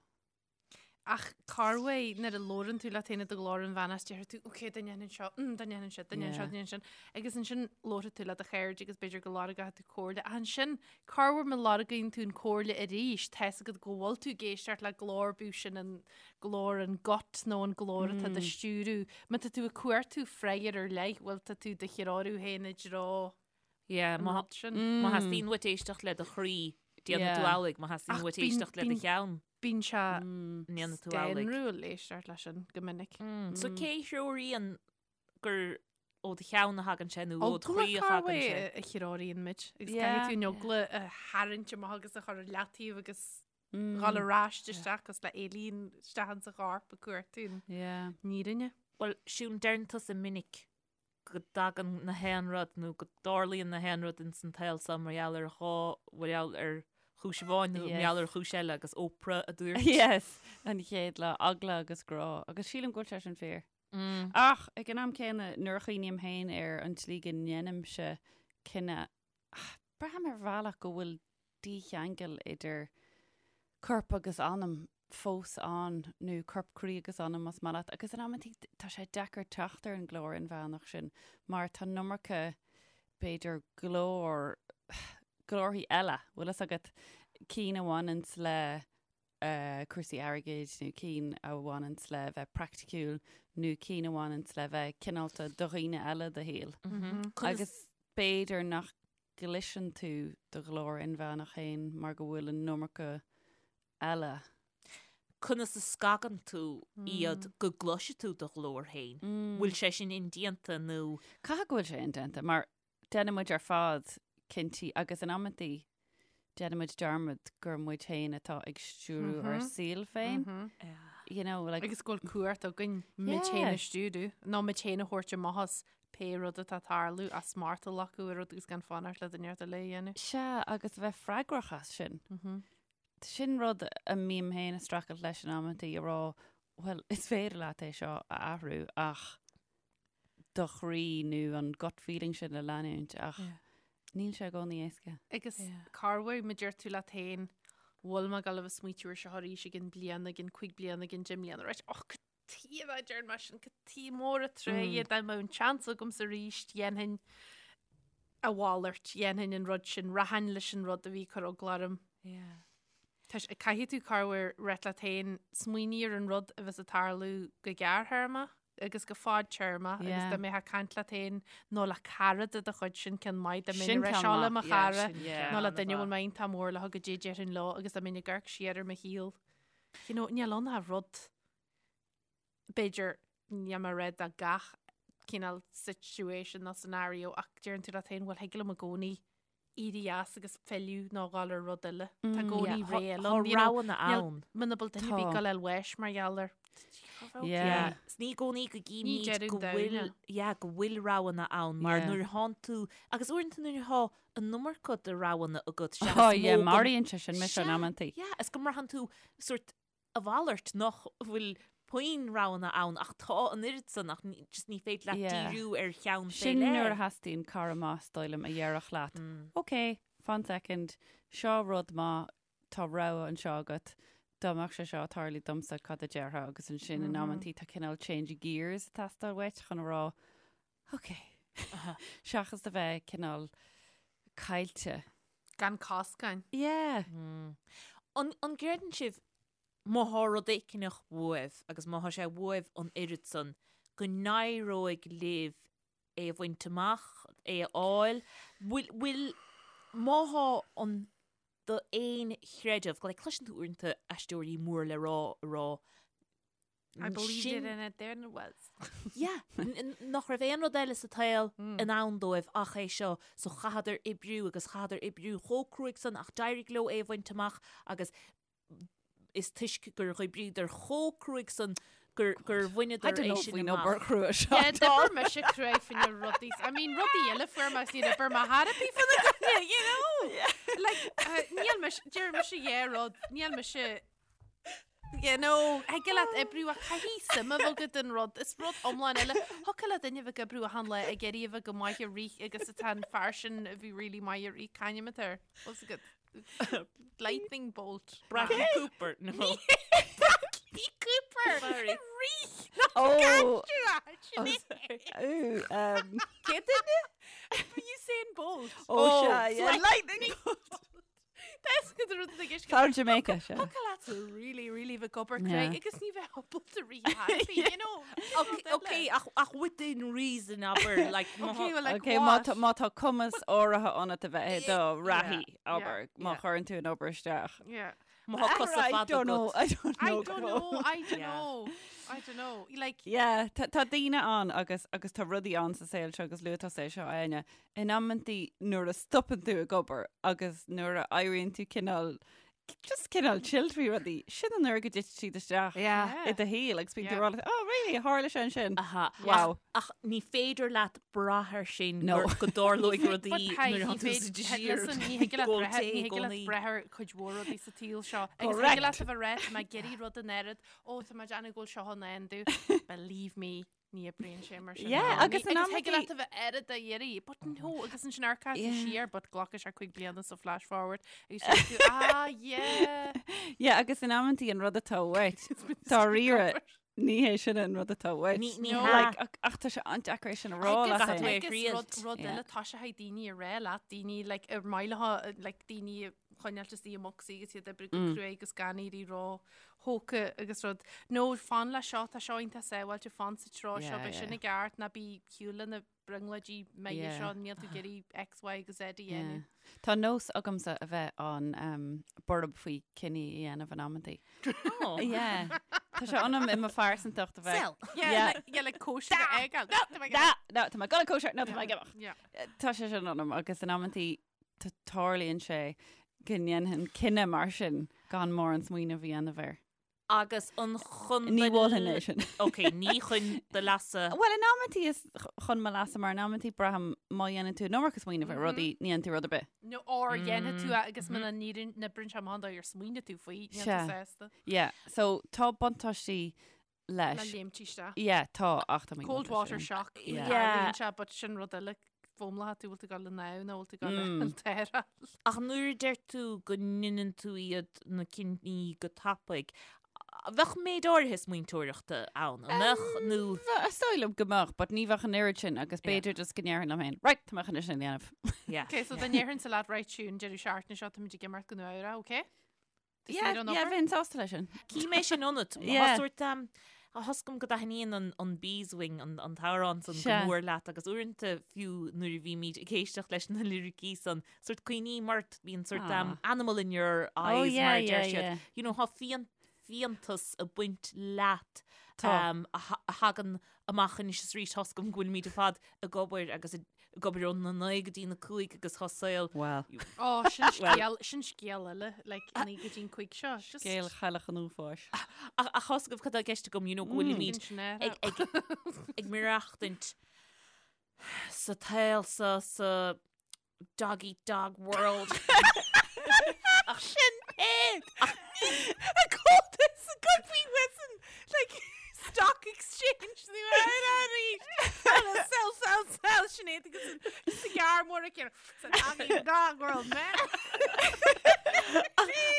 D: Ach corruair nuair a labhrann tú leat féin i do ghlór inmheánach deir tú ok dá ndéanfainn seo, mm, dá ndéanfainn seo, dá ndéanfainn seo,
B: Yeah.
D: dá ndéanfainn sin. Agus ansin labharfaidh tú le do chairde agus b'fhéidir go lorgóidh tú comhairle. Ach ansin corruair má lorgaíonn tú an comhairle arís, tá's agat go bhfuil tú ag éisteacht le glór bíodh sin an glór an gut nó an glór atá do stiúradh. Má tá tú ag cuartú freagra ar leith, bhfuil tá tú do threorú féin i dtreo
C: Yeah,
D: an
C: má
D: rud sin.
C: má theastaíonn uait éisteacht le do chroí. Déanfaidh tú amhlaidh má theastaíonn uait éisteacht le do cheann.
D: Bíonn sé
C: ndéanfaidh tú amhlaidh.
D: scanrúil éisteacht leis sin go minic.
C: So cé a threoraíonn gur ó do cheann a thagann sé nó ó do chroí a thagann sé?
D: a threoraíonn muid agus caithfidh tú an eagla a tharraingt amach agus a chur ar leataobh agus dhul ar ais isteach agus le éalaín isteach insa chorp ag cuartú an fhírinne.
C: Bhuel, Siún, deireann tusa minic go dtagann na haon rud nó go dtarlaíonn na haon rud ins an tsaol seo mar gheall ar dhá, mar gheall ar chúis amháin nó mar gheall ar chúis eile agus Oprah a dúirt.
B: Yes, an chéad lá, eagla agus grá. Agus sílim go bhfuil sé sin fíor. Ach ag an am céanna, nuair a chuimhním féin ar an tslí go ndéanaimse cinneadh, braithim ar bhealach go bhfuil dícheangal idir corp agus anam fós ann, nó corp, croí agus anam más maith leat, agus in amantaí tá sé deacair teacht ar an nglór inmheánach sin mar tá an iomarca, b'fhéidir, glór, glórthaí eile, bhfuil fhios agat, cinn a bhaineanns le cúrsaí airgid nó cinn a bhaineanns le bheith praiticiúil nó cinn a bhaineanns le bheith cineálta do dhaoine eile i do shaol. Agus b'fhéidir nach gcloiseann tú do ghlór inmheánach féin mar go bhfuil an iomarca eile.
C: Conas a scagann tú iad go gcloisfidh tú do ghlór féin? Bhfuil sé sin indéanta nó?
B: Caithfidh go bhfuil sé indéanta mar Déanann muid ar fad cinntí agus in amantaí déanann muid dearmad gur muid féin atá ag stiúrú ár saol féin. You know, like,
D: Agus go bhfuil cumhacht againn muid féin a stiúrú, nó muid féin a thabhairt amach as pé rud atá ag tarlú, as smacht a ghlacadh ar rud agus gan fanacht le duine eile a dhéanamh.
B: Sea, agus a bheith freagrach as sin. Sin rud a mbím féin ag streachailt leis in amantaí, a rá, bhuel, is féidir leat é seo a athrú ach do chroí nó an gut feeling sin a leanúint ach níl sé i gcónaí éasca.
D: Agus corruair má deir tú leat féin, bhfuil mé ag dul a bheith ag smaoitiú ar seo arís i gcionn bliana, i gcionn cuig bliana, i gcionn deich mbliana, right? Och, cad tuige a deirim mar sin, cad tuige mór an truaighe dá mbeadh an seans agamsa arís, dhéanfainn a mhalairt, dhéanfainn an rud sin, rachainn leis an rud a bhí ag cur eagla orm. Tá sé, caithfidh tú corruair rá leat féin, smaoinigh ar an rud a bheas ag tarlú go gearrthéarmach agus go fadtéarmach agus dá mbeifeá ag caint leat féin nó le cara de do chuid sin ceann maith dá mbeinn ag rá seo le mo chara nó le duine a bhfuil mé iontach mór leo goidé a déarfainn leo agus dá mbeinn ag amharc siar ar mo shaol. You know, níl ann ach rud b'fhéidir níl mé ag rá do gach cineál situation nó scenario ach deireann tú leat féin bhuel thig liom i gcónaí éirí as agus filleadh nó dhul ar rud eile. Tá i gcónaí ré eile
C: ann. Tá roghanna ann.
D: Muna bhfuil duine ar bith ag dul ar bháis mar gheall air.
B: Yeah.
C: Is ní i gcónaí go gcímid go bhfuil, yeah, go bhfuil roghanna ann mar nuair a thánn tú, agus uaireanta nuair atá an iomarca de roghanna agat,
B: sea, is mó go. Yeah, maraíonn sé sin mise in amantaí.
C: Yeah, is go mbraitheann tú sort a mhalairt nach bhfuil puinn roghanna ann ach tá an oiread san ach just ní féidir leat díriú ar cheann
B: fé Sin nuair a theastaíonn cara maith is dóigh liom a dhéarfadh leat, ok, fan soicind, seo rud maith, tá rogha anseo agat, dá mbeadh sé seo ag tarlú domsa cad a déarfá agus ansin in amantaí tá cineál change of gears ag teastáil uait chun a rá, ok, seachas a bheith cineál caillte.
D: Gan coscáin.
B: Yeah.
C: An an gcreideann
B: sibh
C: má thá rud éigineach uaibh agus má thá sé uaibh an oiread san go n-éireoidh libh é a bhaint amach, é a fháil? Bhfuil, bhfuil, má thá an d'aon chreideamh, like cloiseann tú uaireanta aisteoirí mór le rá a rá
D: I believed it and it there it was.
C: Yeah, nach raibh aon rud eile sa tsaol i ndán dóibh ach é seo, so chaitheadar oibriú agus chaitheadar oibriú chomh cruaidh san ach d'éirigh leo é a bhaint amach agus is toisc gur oibríodar chomh cruaidh san gur gur bhaineadar é sin
B: amach. Obair chrua
D: seo. Yeah, d'oibir mise cruaidh fá choinne rudaí. I mean, rudaí eile fuair mé agus níor oibir mé thar a bith fá na gcoinne, you know? Like, uh, níl mise, deir mise yeah rud, níl mise You know, thig leat oibriú ach caithfidh suim a bheith agat in rud, is rud iomlán eile. Thiocfadh le duine a bheith ag oibriú achan lá ag iarraidh a bheith go maith ag rith agus atá an fear sin a bhí really maith ag rith, c'ainm atá air? What's it got? Lightning bolt.
C: Bradley Cooper, no.
D: Bradley Cooper!
C: Sorry.
D: Rith!
B: Oh!
D: Oh,
B: Ooh, um,
D: Cé duine? Usain Bolt.
B: oh, sea, yeah. Lightning bolt.
D: That's good. de rud atá i gceist.
B: Fear Jamaica, sea.
D: Thiocfadh leat really, really bheith ag obair cruaidh agus ní bheith ábalta rith thairbhe, you know.
C: Ok, ok, ach, ach within reason, abair, like, má
D: Okay, well, like
B: Ok, má
D: what?
B: tá, má tá cumas áirithe ionat a bheith i do reathaí, abair, má
D: yeah.
B: chuireann tú an obair isteach.
D: Yeah.
C: Má tá cosa
B: I
C: fada
B: don't know,
C: agat.
B: I don't
D: I
B: know.
D: don't know, I don't
C: Yeah.
D: know, I don't know. Like,
B: Yeah, tá tá daoine ann agus agus tá rudaí ann sa saol seo agus luaigh tusa é seo Áine. In amantaí nuair a stopann tú ag obair agus nuair a éiríonn tú cineál just cineál chilled faoi rudaí, sin an uair go dtiteann siad isteach
C: Yeah.
B: i do shaol agus bíonn tú
D: Yeah.
B: ag rá leat, oh really, tharla sé ansin.
C: Aha.
B: Wow.
C: Ach, ach ní féidir leat brath air sin
B: No.
C: gur- go dtarlóidh
D: But
C: rudaí
D: hey,
C: nuair
D: ní
C: atá tú sa
D: féidir-
C: désir.
D: listen, ní thig leat
C: Go
D: breith-
C: té
D: ní
C: i
D: thig leat
C: gcónaí.
D: breith ar cuid mhór rudaí sa tsaol seo. Agus
B: Correct.
D: thig leat a bheith ag rá, tá mé ag iarraidh rud in áirid, ó tá mé ag déanamh go bhfuil seo in ann domh. Believe me, ní oibríonn sé mar sin.
B: Yeah,
D: No.
B: agus
D: Ní-
B: in
D: agus thig
B: amantaí-
D: leat a bheith oiread á iarraidh, but no, agus ansin amharcann tú
B: Yeah.
D: siar, but glacfaidh sé 5 bliana so flash forward, agus deir tú, ah, yeah.
B: Yeah, agus in amantaí an rud atá uait, dáiríre, ní hé sin an rud atá uait.
C: Ní- ní
D: No.
C: hea.
B: Like, ach, ach tá sé an-deacair é sin a rá
C: Agus
B: leat
C: caithfidh tú
B: féin.
C: é a
D: Agus
C: thriail.
D: rud rud
B: Yeah.
D: eile tá sé ag daoine a rá leat, daoine like, ar maith leo, like, daoine a choinneáil istigh i mbocsaí agus iad ag oibriú go cruaidh agus gan éirí ró-thógtha agus rud. No, fan le seo, tá seo iontach sábháilte, fan sa treo seo,
B: Yeah,
D: beidh sin
B: yeah.
D: i gceart, ná bí ar shiúl le na brionglóidí maithe
B: Yeah.
D: seo, níl tú ag iarraidh X, Y agus Z a dhéanamh.
B: Yeah. Tá nós agamsa a bheith an um, borb faoi cinní a dhéanamh in amantaí.
C: Oh.
B: Yeah. Tá sé ionam i mo phearsantacht a bheith.
C: Sell.
D: Yeah,
B: Yeah.
D: like, yeah, like cóisir a fhágáil. No, tá mé ag
B: Da, no, tá mé ag gabháil cóisir, no, tá mé ag imeacht.
D: Yeah.
B: Tá sé sin ionam agus in amantaí tá- tarlaíonn sé go ndéanfainn cinneadh mar sin gan mórán smaoineamh a dhéanamh air.
C: Agus an chun
B: Ní
C: do
B: mholfainn é sin.
C: Ok, ní chun do leasa.
B: Well, in amantaí is chun mo leasa mar in amantaí braithim má dhéanann tú an iomarca smaoineamh ar rudaí, ní dhéanann tú rud ar bith.
D: No, or dhéanfaidh tú é agus muna n-oibríonn sé amach an dóigh ar smaoinigh tú faoi, níl tú
B: Sea.
D: sásta.
B: Yeah, so tá buntáistí
D: Le
B: leis.
D: léimt isteach.
B: Yeah, tá, ach tá mé
D: Cold water shock.
B: Yeah.
D: Yeah. Sé, but sin rud eile fómlaithe tú bhfuil tú ag gabháil anonn nó bhfuil tú ag gabháil an t-aer.
C: Ach nuair a deir tú go ndéanann tú iad na cinní go tapaidh, bheadh méid áirithe smaointeoireachta ann, an mbeadh nó
B: Is dóigh liom go mbeadh, but ní bheadh an oiread sin agus b'fhéidir just go ndéarfainn liom féin, right, tá mé chun é sin a dhéanamh.
C: Yeah.
D: Ok, so dá ndéarfainnse leat right Siún deireadh seachtaine seo táimid ag imeacht go Nua Eabhrac, ok? Tú
B: Yeah,
D: saor ón
B: yeah,
D: obair?
B: bheinn sásta leis sin.
C: Cím é sin ionat.
B: Yeah.
C: Tá sórt um, tá fhios agam go dtaitníonn an, an Beeswing, an, an t-amhrán san go
B: Sea.
C: mór leat agus uaireanta fiú nuair a bhímid ag éisteacht leis na liricí san, sórt cuimhním ort, bíonn sórt um,
B: Ah.
C: animal in your
B: Oh,
C: eyes
B: yeah,
C: mar a deir
B: yeah,
C: siad.
B: yeah.
C: You know, tá fian, fiántas ag baint leat
B: Tá.
C: um, a, tha- a thagann amach anois is arís tá fhios agam go bhfuilimid ar fad ag obair agus ag obair ó na 9 go dtí na 5 agus tá saol
B: Well,
D: Ó, sin scéal, sin scéal eile, like, 9 go dtí an 5 seo. Just
B: scéal chailleach an uafáis.
C: Ach ach tá fhios agaibh cad tá i gceist agam, you know, go bhfuilimid
D: sin sin
C: ag, ag, ag maireachtaint sa tsaol sa, sa dog eat dog world. Ach sin é! Ach
D: A cótas a go faoi Wesson, like, stock exchange ní arís. Sell, sell, sell, Sinéad agus an cigar mór aici. Sa dog eat dog world, man.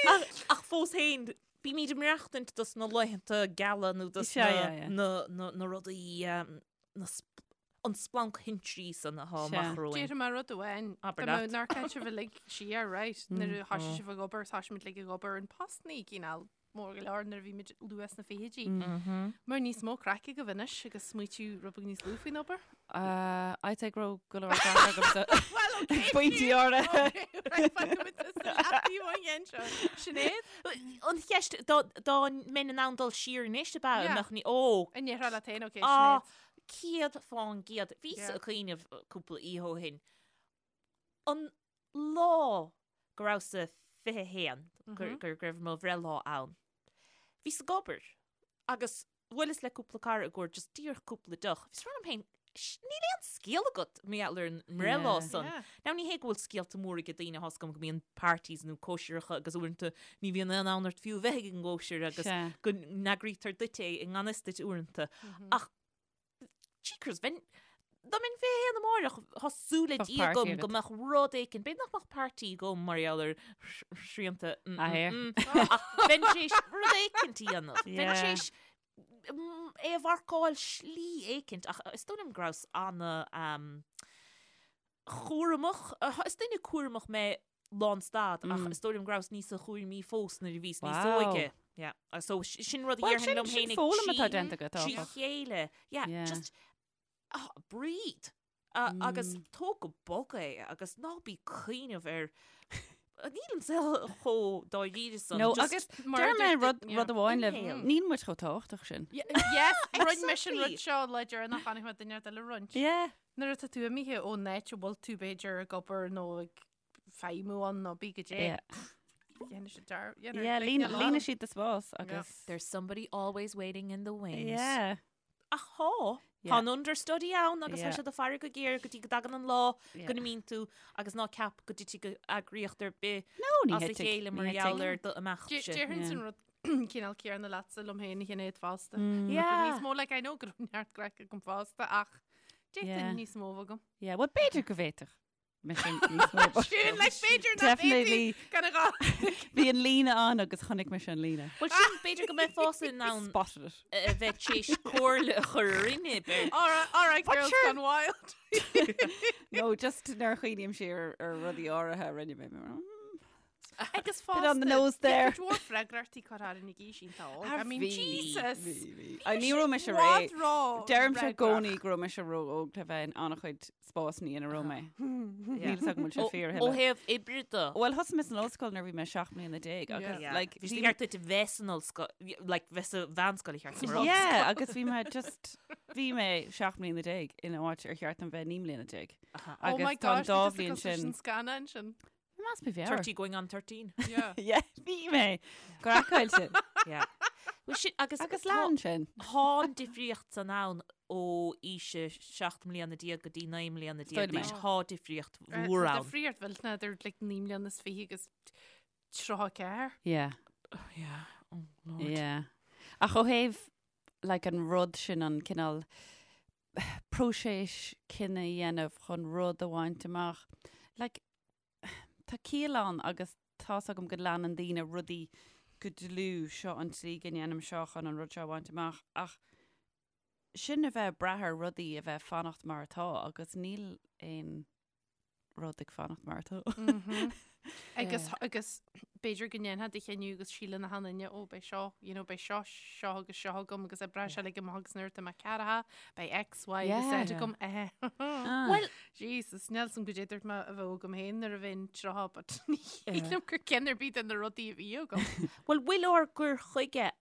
C: ach, ach fós féin, bímid ag maireachtaint dos na laethanta geala nó dos
B: Sea,
C: na,
B: yeah, yeah.
C: na, na, na rudaí, um, na sp an splanc thintrí san atá
B: Sea.
C: amach romhainn.
D: Déarfaidh mé rud amháin.
C: Abair
D: Tá
C: leat.
D: nár caint sibh uilig siar, right? Nuair a thoisigh sibh ag obair, thoisigh muid uilig ag obair in postannaí cineál mór go leor nuair a bhí muid luath sna fichidí. Mar níos mó craic agaibh anois agus smaoitiú rud beag níos lú faoin obair.
B: Uh, I'd say go raibh go leor craic agamsa.
D: Well, okay.
B: Pointí áirithe.
D: Okay, right, fágfaimid tusa leataobh ón gceann seo. Sinéad?
C: An cheist, dá dá mbeinn in ann dul siar anois ab ea,
D: Yeah.
C: an mbeadh ní, ó,
D: An ndéarfá leat féin, okay,
C: ah,
D: Sinéad.
C: 100%. Bhíos
D: Yeah.
C: ag cuimhneamh cúpla oíche ó shin. An lá go rabhas-sa 21, gur gur go raibh mo bhreithlá ann, bhíos ag obair agus bhuaileas le cúpla cara i gcomhair just díreach cúpla deoch. Bhíos ag rá liom féin, "Sh, níl aon scéal agat mar gheall ar an mbreithlá
B: Yeah.
C: san.
D: Yeah.
C: Now ní hé go bhfuil scéalta móra ag daoine, tá fhios agam go mbíonn parties nó cóisireacha agus uaireanta ní bhíonn aon fhonn ort fiú a bheith ag an gcóisir agus
B: Sea.
C: go n-eagraítear duit é i ngan fhios duit uaireanta. Ach Jeekers, bheinn, dá mbeinn 21 amáireach, tá súil le
B: Bheadh
C: Dia
B: party
C: agam
B: agat.
C: go mbeadh rud éicint, b'fhéidir nach mbeadh party agam mar gheall ar shrianta, mm,
B: Ah,
C: mm,
B: here.
C: mm, ach bheinn tar éis rud éicint a dhéanamh, bheinn tar
B: Yeah.
C: éis mm, é a mharcáil slí éicint, ach is dóigh liom go rabhas ana um, chúramach, is duine cúramach mé. lánstad ach is dóigh liom go rabhas níosa chúramaí fós nuair a bhíos níos
B: Wow.
C: óige. Yeah. So sin rud a
B: Well,
C: dhéarfainn
B: sin
C: liom
B: sin
C: féin ag
B: foghlaim atá
C: trí
B: déanta agat,
C: trí
B: áfach.
C: chéile. Yeah,
B: Yeah.
C: just ah, breathe. Agus tóg go bog é agus ná bí ag cuimhneamh ar Níl an saol chomh dáiríre san.
B: No,
C: just
B: agus
D: mar
B: deir mé
D: dúirt
B: rud
D: yeah.
B: rud amháin libh,
C: Inhale.
B: níl muid chomh tábhachtach sin.
D: Yes, roinn mise an rud
C: Exactly.
D: seo le deireanach chonaic mé duine eile roinnt.
B: Yeah.
D: Nuair atá tú imithe ón áit a bhfuil tú b'fhéidir ag obair nó ag feidhmiú ann nó bí go dé.
B: Yeah.
D: Dhéanfaidh siad dear-
B: Yeah,
D: dhéanfaidh
B: líon
D: daoine
B: líonfaidh siad do spás agus
C: There's somebody always waiting in the wings.
B: Yeah.
C: Ach thá,
B: Yeah.
C: tá an understudy ann agus tá
B: Yeah.
C: siad ag faire go géar go dtí go dtagann an lá
B: Yeah.
C: go n-imíonn tú agus ná ceap go dtitfidh go eagraíocht ar bith
B: No, ní
C: as a
B: thitfidh,
C: chéile
B: ní
C: mar gheall
B: thitfidh.
C: ar do imeacht
D: Dé-
C: sin.
D: Déarfainn
B: Yeah.
D: san rud cineál céanna leatsa liom féin a Shinéad fosta.
B: Mm.
C: Yeah.
D: Níos mó like I know go raibh neart craic agam fosta ach
B: Yeah.
D: d'fhéadfainn níos mó agam.
B: Yeah, well b'fhéidir go bhféadfadh. Mise níos mó, but
D: Sin like b'fhéidir nach
B: Definitely.
D: bhféadfaí gan a gá.
B: Bhí an líne ann agus chonaic mise an líne.
C: Well sin b'fhéidir go mbeifeása in ann
B: Spotted it.
C: a bheith tar éis comhairle a chur orainne b'fhéidir.
D: All right, all right,
B: But
D: girls
B: sure.
D: gone wild.
B: No, just nuair a chuimhním siar ar rudaí áirithe a rinne mé.
D: Agus
B: Bit on the
D: fosta,
B: nose there.
D: Bhí cuid mhór freagrachtaí curtha orainn ag aois iontach óg.
B: Ah,
D: I mean,
B: bhí,
D: Jesus.
B: bhí, bhí. Ah, ní raibh mise
D: Bhí
B: réidh.
D: siad ró
B: Deirimse i
D: fhreagrach.
B: gcónaí go raibh mise ró-óg le bheith in an-chuid spásanna ina raibh mé. Níl a fhios agam an bhfuil sé fíor a
C: Ó
B: thuilleadh.
C: thaobh oibre de.
B: Well, thosaigh mé san ollscoil nuair a bhí mé 17 mbliana agus
C: Yeah.
B: like
C: Bhí sé
B: bhí
C: ceart duit a bheith san ollscoil, like bheith sa mheánscoil a cheart sa
B: Yeah, agus bhí mé just bhí mé 17 mbliana in áit ar cheart dom bheith 19 mbliana.
D: Oh my
B: Agus tá an
D: gosh,
B: dá
D: bhí
B: bhliain
D: tusa
B: sin
D: sin scannán sin.
B: Must be mheabhair.
C: 30 going on 13.
D: Yeah.
B: Yeah, bhí mé. Craiceáilte.
C: Yeah. Well, sin, agus
B: Agus
C: tá-
B: lean sin.
C: Tá an difríocht san ann ó aois a 17 mbliana go dtí 19 mbliana
B: Is dóigh liom é.
C: d'aois. Tá difríocht mhór
D: Tá
C: ann.
D: difríocht mhillteanach idir like 9 mbliana is 20 agus 34.
B: Yeah.
C: Yeah. Oh, Lord.
B: Yeah. Ach ó thaobh like, an rud sin an cineál próiseas cinneadh a dhéanamh chun rud a bhaint amach. Like, tá ciall ann agus tá's agam go leanann daoine rudaí go dlúth, seo an tslí go ndéanaim seo chun an rud seo a bhaint amach ach sin a bheith ag brath ar rudaí a bheith fanacht mar atá agus níl aon rud ag fanacht mar atá.
D: Agus agus b'fhéidir go ndéanfá do chinneadh agus síleann achan duine ó beidh seo, you know, beidh seo, seo agus seo agam agus oibreoidh sé uilig amach agus nuair atá mé ceathracha, beidh X, Y agus
B: Yeah.
D: Z agam. Eh.
B: Well,
D: Jesus, níl 's a'm goidé dúirt mé a bheadh agam féin nuair a bheinn 30 but ní shílim gur ceann ar bith de na rudaí a bhí agam.
C: Bhuel, bhfuil ár gcur chuige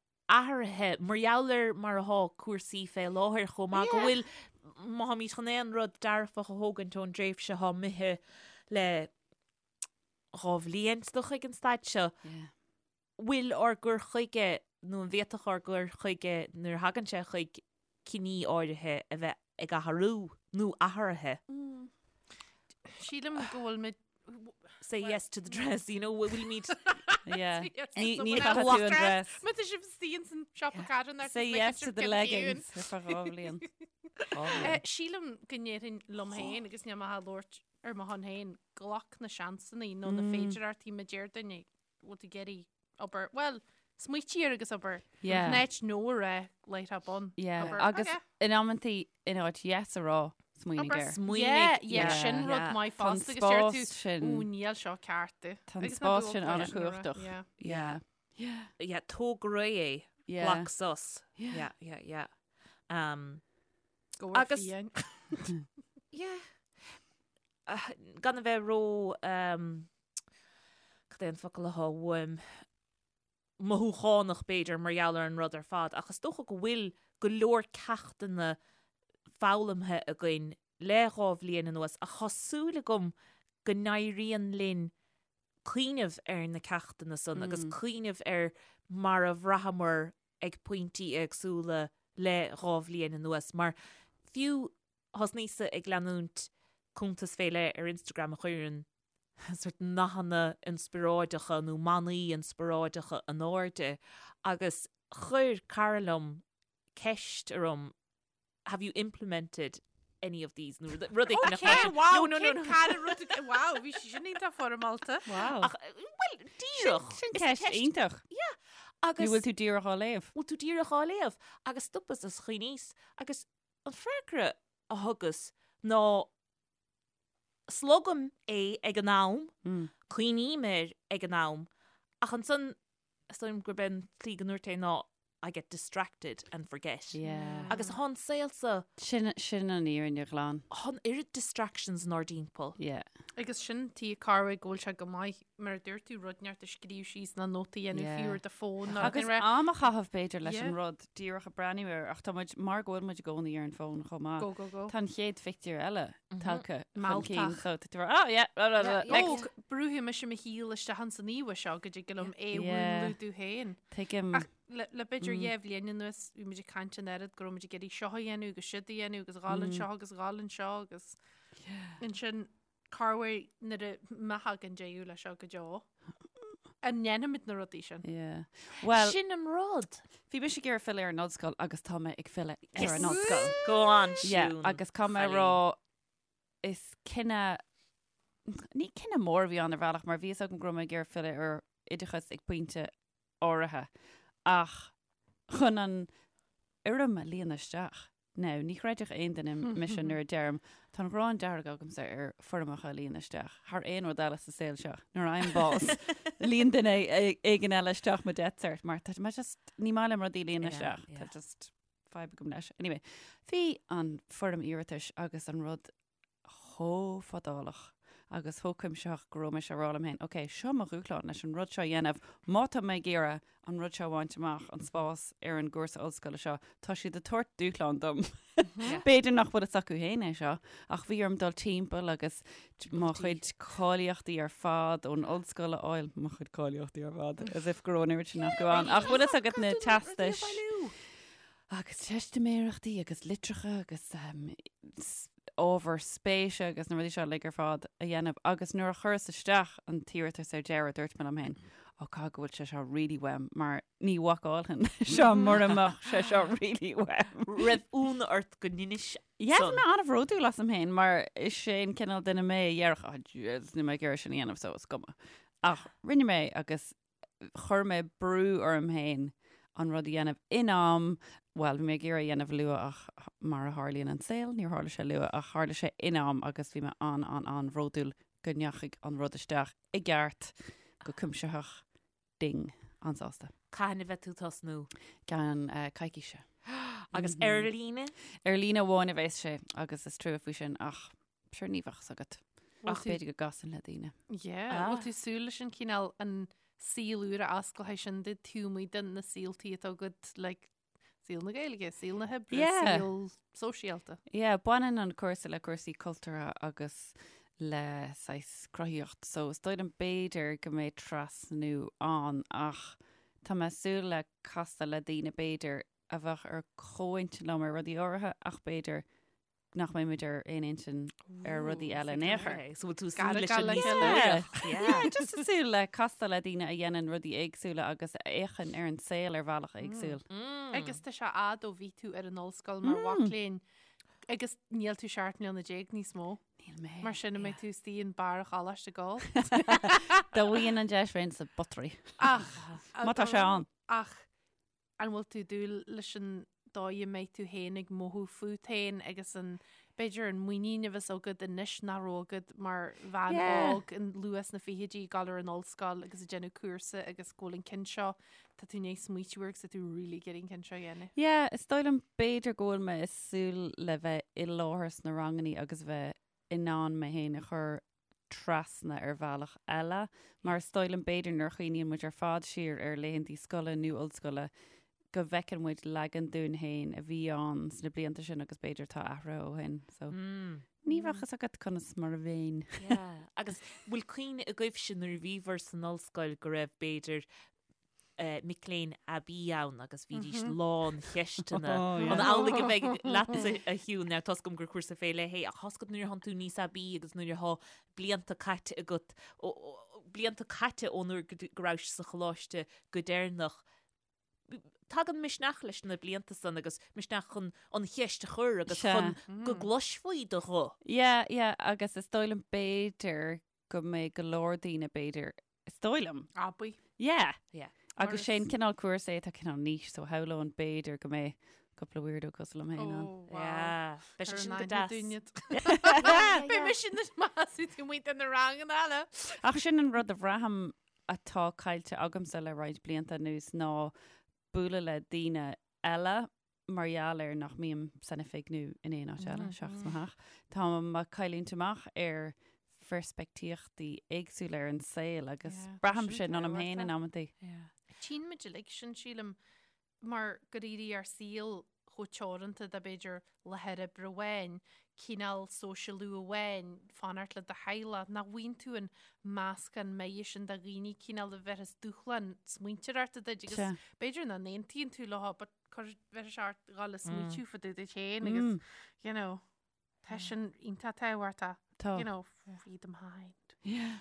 C: athraithe mar gheall ar mar atá cúrsaí fé láthair chomh maith, go bhfuil, má tháimid chun aon rud dearfach a thógaint ón dtréimhse atá imithe le 2 bhliain is dócha ag an staid seo, bhfuil ár gcur chuige, nó an bhféadfadh ár gcur chuige nuair a thagann sé chuig cinní áirithe a bheith ag athrú nó athraithe?
D: Sílim go bhfuil muid
C: Say yes to the dress, you know, bhfuilimid
B: Yeah. Ní
D: So
B: ní
D: when I
B: chaithfidh
D: walk
B: tú an
D: dress,
B: dress.
D: Má tá sibh istigh ins an siopa carthanachta
B: Say yes to the leggings ar feadh 2 bhliain.
D: Eh, Sílim go ndéarfainn liom féin agus níl mé ag labhairt ar mo shon féin, glac na seansanna nó na féidearthachtaí má deir duine bhfuil tú ag iarraidh obair, bhuel, smaoitigh air agus abair.
B: Yeah.
D: In áit no a rá láithreach bonn.
B: Yeah,
D: Abair,
B: agus
D: okay.
B: in amantaí in áit yes a rá, smaoinigh
D: Abair
B: air.
C: smaoinigh.
D: Yeah, yeah,
B: Yeah.
D: sin rud
C: Yeah.
D: maith
B: Tá an
D: fosta agus deir tú,
B: spás sin-
D: "Ó, níl seo ceart di."
B: Tá an
D: Agus ná
B: spás
D: bíodh
B: sin
D: olc leis sin a rá.
B: an-chumhachtach.
D: Yeah.
B: Yeah. Yeah.
C: Yeah, tóg ar aghaidh é.
B: Yeah.
C: Glac sos. Yeah, yeah, yeah. Um,
D: Go bhfuil
C: Agus-
D: fiáin.
C: yeah. Ah, gan a bheith ró um, cad é an focal atá uaim mothúchánach b'fhéidir mar gheall ar an rud ar fad ach is dócha go bhfuil go leor ceachtanna foghlamtha againn le 2 bhliain anuas ach tá súil agam go n-éiríonn linn cuimhneamh ar na ceachtanna san agus cuimhneamh ar mar a bhraitheamar ag pointí éagsúla le 2 bhliain anuas mar fiú thosnaíos-sa ag leanúint cuntas fé leith ar Instagram a chuireann sort nathanna inspioráideacha nó manaí inspioráideacha in airde agus chuir cara liom ceist orm have you implemented any of these nó rud éigin
D: Okay, wow,
C: no, no, no, no.
D: cara rud wow, bhí sí sin iontach foirmeálta.
B: Wow.
C: Ach, well, díreach.
B: Sin
C: Is
B: ceist iontach.
C: Yeah.
B: Ní
C: Agus
B: bhfuil tú díreach á léamh.
C: bhfuil tú díreach á léamh agus stopas is chuimhníos agus an freagra a thugas ná. Slogaim é ag an am, cuimhním air ag an am, ach ansan is dóigh liom gurb é an tslí go ndúirt é ná I get distracted and forget.
B: Yeah.
C: Agus tá an saol so.
B: Sin, sin an fhírinne ghlan.
C: Tá an oiread distractions inár dtimpeall.
B: Yeah.
D: Agus sin tuige corruair go bhfuil sé go maith, mar a dúirt tú, rud inteacht a scríobh síos nó nóta a dhéanamh
B: Yeah.
D: fiú ar do fón nó
B: Agus
D: rud inteacht.
B: am a chaitheamh b'fhéidir leis
D: Yeah.
B: an rud díreach ag breathnú air ach tá muid, mar go bhfuil muid i gcónaí ar an bhfón chomh maith.
D: Go, go, go.
B: Tá an chéad phictiúr eile tagtha chun
D: Mealltach.
B: cinn so tá tú mar, oh yeah, blah, blah, blah, next.
D: Ó, brúfaidh mise mo shíl isteach ins an íomha seo go dtig liom é a
B: Yeah.
D: mhúnlú domh féin.
B: Tuigim.
D: Ach le le b'fhéidir dheich bhliain anuas bhí muid ag caint an oiread go raibh muid ag iarraidh seo a dhéanamh agus siúd a dhéanamh agus dhul anseo agus dhul anseo agus ansin corruair nuair a má thagann deireadh leis seo go deo. An ndéanfaimid na rudaí sin?
B: Yeah. Well,
C: Sin an rud.
B: bhí mise ag iarraidh filleadh ar an ollscoil agus tá mé ag filleadh ar an ollscoil.
C: Go on,
B: Yeah,
C: Siún.
B: agus tá mé
C: Chailín.
B: rá is cinneadh ní cinneadh mór a bhí ann ar bhealach mar bhí a fhios agam go raibh mé ag iarraidh filleadh ar oideachas ag pointe áirithe ach chun an fhoirm a líonadh isteach. Now, ní chreidfeadh aon duine mise nuair a deirim, tá an ghráin dearg agamsa ar foirmeacha a líonadh isteach, thar aon rud eile sa saol seo. Nuair a fhaighim bás, líon duine éigin eile isteach mo death cert, mar tá mé just, ní maith liom rudaí a líonadh isteach. Tá just fadhb agam leis. Anyway, bhí an foirm iarratais agus an rud chomh fadálach agus chomh cuimsitheach go raibh mise ag rá liom féin, ok, seo mo dhúshlán leis an rud seo a dhéanamh, má tá mé ag iarraidh an rud seo a bhaint amach, an spás ar an gcúrsa ollscoile seo, tá siad ag tabhairt dúshlán dom. B'fhéidir nach bhfuil fhios acu féin é seo, ach bhí orm dul timpeall agus mo chuid cáilíochtaí ar fad ón ollscoil a fháil, mo chuid cáilíochtaí ar fad, as if go raibh an oiread sin acu ann, ach bhfuil fhios agat na teastais agus teistiméireachtaí agus litreacha agus ábhar spéise agus na rudaí seo uilig ar fad a dhéanamh agus nuair a chuireas isteach an t-iarratas ar deireadh dúirt mé liom féin, ó caithfidh go bhfuil sé seo really uaim mar ní bhacálfainn seo mura mbeadh sé seo really uaim.
C: Raibh ionadh ort go ndeinis
B: Yeah, bhí
C: san?
B: mé an-bhródúil asam féin mar is é an cineál duine mé a dhéarfadh, oh Jesus, níl mé ag iarraidh sin a dhéanamh so is cuma. Ach rinne mé agus chuir mé brú orm féin an rud a dhéanamh in am, bhuel, bhí mé ag iarraidh a dhéanamh luath ach mar a tharlaíonn an saol, níor tharla sé luath ach tharla sé in am agus bhí mé an-an-an-bhródúil go ndeachaigh an rud isteach i gceart, go cuimsitheach, ding, an-sásta.
C: Cathain a bheidh tú ag tosnú?
B: Ceann coicíse.
C: Agus ar líne?
B: Ar líne amháin a bheas sé agus is trua faoi sin ach Sure ní bheadh fhios agat. Ach b'fhéidir go gcasann le daoine.
D: Yeah, bhfuil tú súil leis an cineál an saol úr a osclóidh sin duit taobh amuigh de na saoltaí atá agat like saol na Gaeilge, saol na hoibre,
B: Yeah.
D: saol sóisialta.
B: Yeah, baineann an cúrsa le cúrsaí cultúrtha agus le saghas cruthaíocht, so is dóigh liom b'fhéidir go mbeidh trasnú ann ach tá mé ag súil le castáil le daoine b'fhéidir a bheadh ar comhintinn liom ar rudaí áirithe ach b'fhéidir nach mbeidh muid ar aon intinn ar rudaí eile in aon chor.
C: So bhfuil tú súil leis an
D: le
C: díospóireacht?
B: Yeah, just ag súil le castáil le daoine a dhéanann rudaí éagsúla agus a fhéachann ar an saol ar bhealach éagsúil.
D: Agus tá sé fhad ó bhí tú ar an ollscoil mar mhac léinn agus níl tú 17 mbliana níos mó.
B: Níl mé.
D: Mar sin an mbeidh tú istigh in barr an choláiste ag gabháil.
B: Dá bhfaighinn an deis bheinn sa bpottery.
D: Ach
B: Má tá sé ann.
D: Ach An bhfuil tú ag dúil leis an dóigh a mbeidh tú féin ag mothú fút féin agus an, b'fhéidir an muinín a bheas agat anois nach raibh agat mar bhean
B: Yeah.
D: óg in luath sna fichidí ag dul ar an ollscoil agus ag déanamh cúrsa agus go bhfuil an ceann seo, tá tú i ndiaidh smaoitiú air agus tá tú really ag iarraidh an ceann seo a dhéanamh.
B: Yeah, is dóigh liom b'fhéidir go bhfuil mé ag súil le bheith i láthair sna rangannaí agus bheith in ann mé féin a chur trasna ar bhealach eile, mar is dóigh liom b'fhéidir nuair a chuimhníonn muid ar fad siar ar laethanta scoile nó ollscoile go bhfeiceann muid leagan dúinn féin a bhí ann sna blianta sin agus b'fhéidir tá athraithe ó shin. So ní bheadh fhios agat conas mar a bheinn.
C: Yeah. Agus bhfuil cuimhne agaibhse nuair a bhíobhair san ollscoil go raibh b'fhéidir mic léinn aibí ann agus bhídís lán cheisteanna. An amhlaidh a bheidh leatsa a Shiún, now tá's agam gur cúrsa fé leith é, ach tá's agat nuair atánn tú níos aibí agus nuair atá blianta caite agat, blianta caite ón uair go rabhais sa choláiste go deireanach, tagann misneach leis na blianta san agus misneach chun an cheist a chur agus chun go gcloisfí do ghuth.
B: Yeah, yeah, agus is dóigh liom b'fhéidir go mbeidh go leor daoine b'fhéidir Is dóigh liom.
D: Aibí.
B: Yeah.
C: Yeah.
B: Agus sé an cineál cúrsa é atá cineál niche, so shamhlóinn b'fhéidir go mbeidh cúpla weirdo cosúil liom féin ann.
D: Oh, wow.
C: Yeah. Beidh sé sin go deas.
D: Beidh mise na measú tú muid na ranganna eile.
B: Ach sin an rud a bhraithim atá caillte agamsa le roinnt blianta anuas ná bualadh le daoine eile mar gheall ar nach mbím san oifig nó in aon áit eile seachas mo theach. Tá mé ag cailliúint amach ar pheirspictíochtaí éagsúla ar an saol agus
D: Yeah,
B: braithim
D: sin
B: sin ionam féin in
D: tábhachtach.
B: amantaí.
D: Tchíonn muid uilig sin, sílim, mar gur éirigh ár saol chomh teoranta de b'fhéidir láthair oibre amháin, cineál sóisialú amháin, fanacht le do theaghlach, nach bhfaigheann tú an meascán maith sin de dhaoine cineál a bhéarfas dúshlán smaointeoireachta duit agus
B: Sea.
D: b'fhéidir nach n-aontaíonn tú leo but cuir bheir sé ort dhul ag smaoitiú fá dtaobh duit féin agus you know tá sin iontach tábhachtach
B: Tá.
D: you know free the mind.
B: Yeah.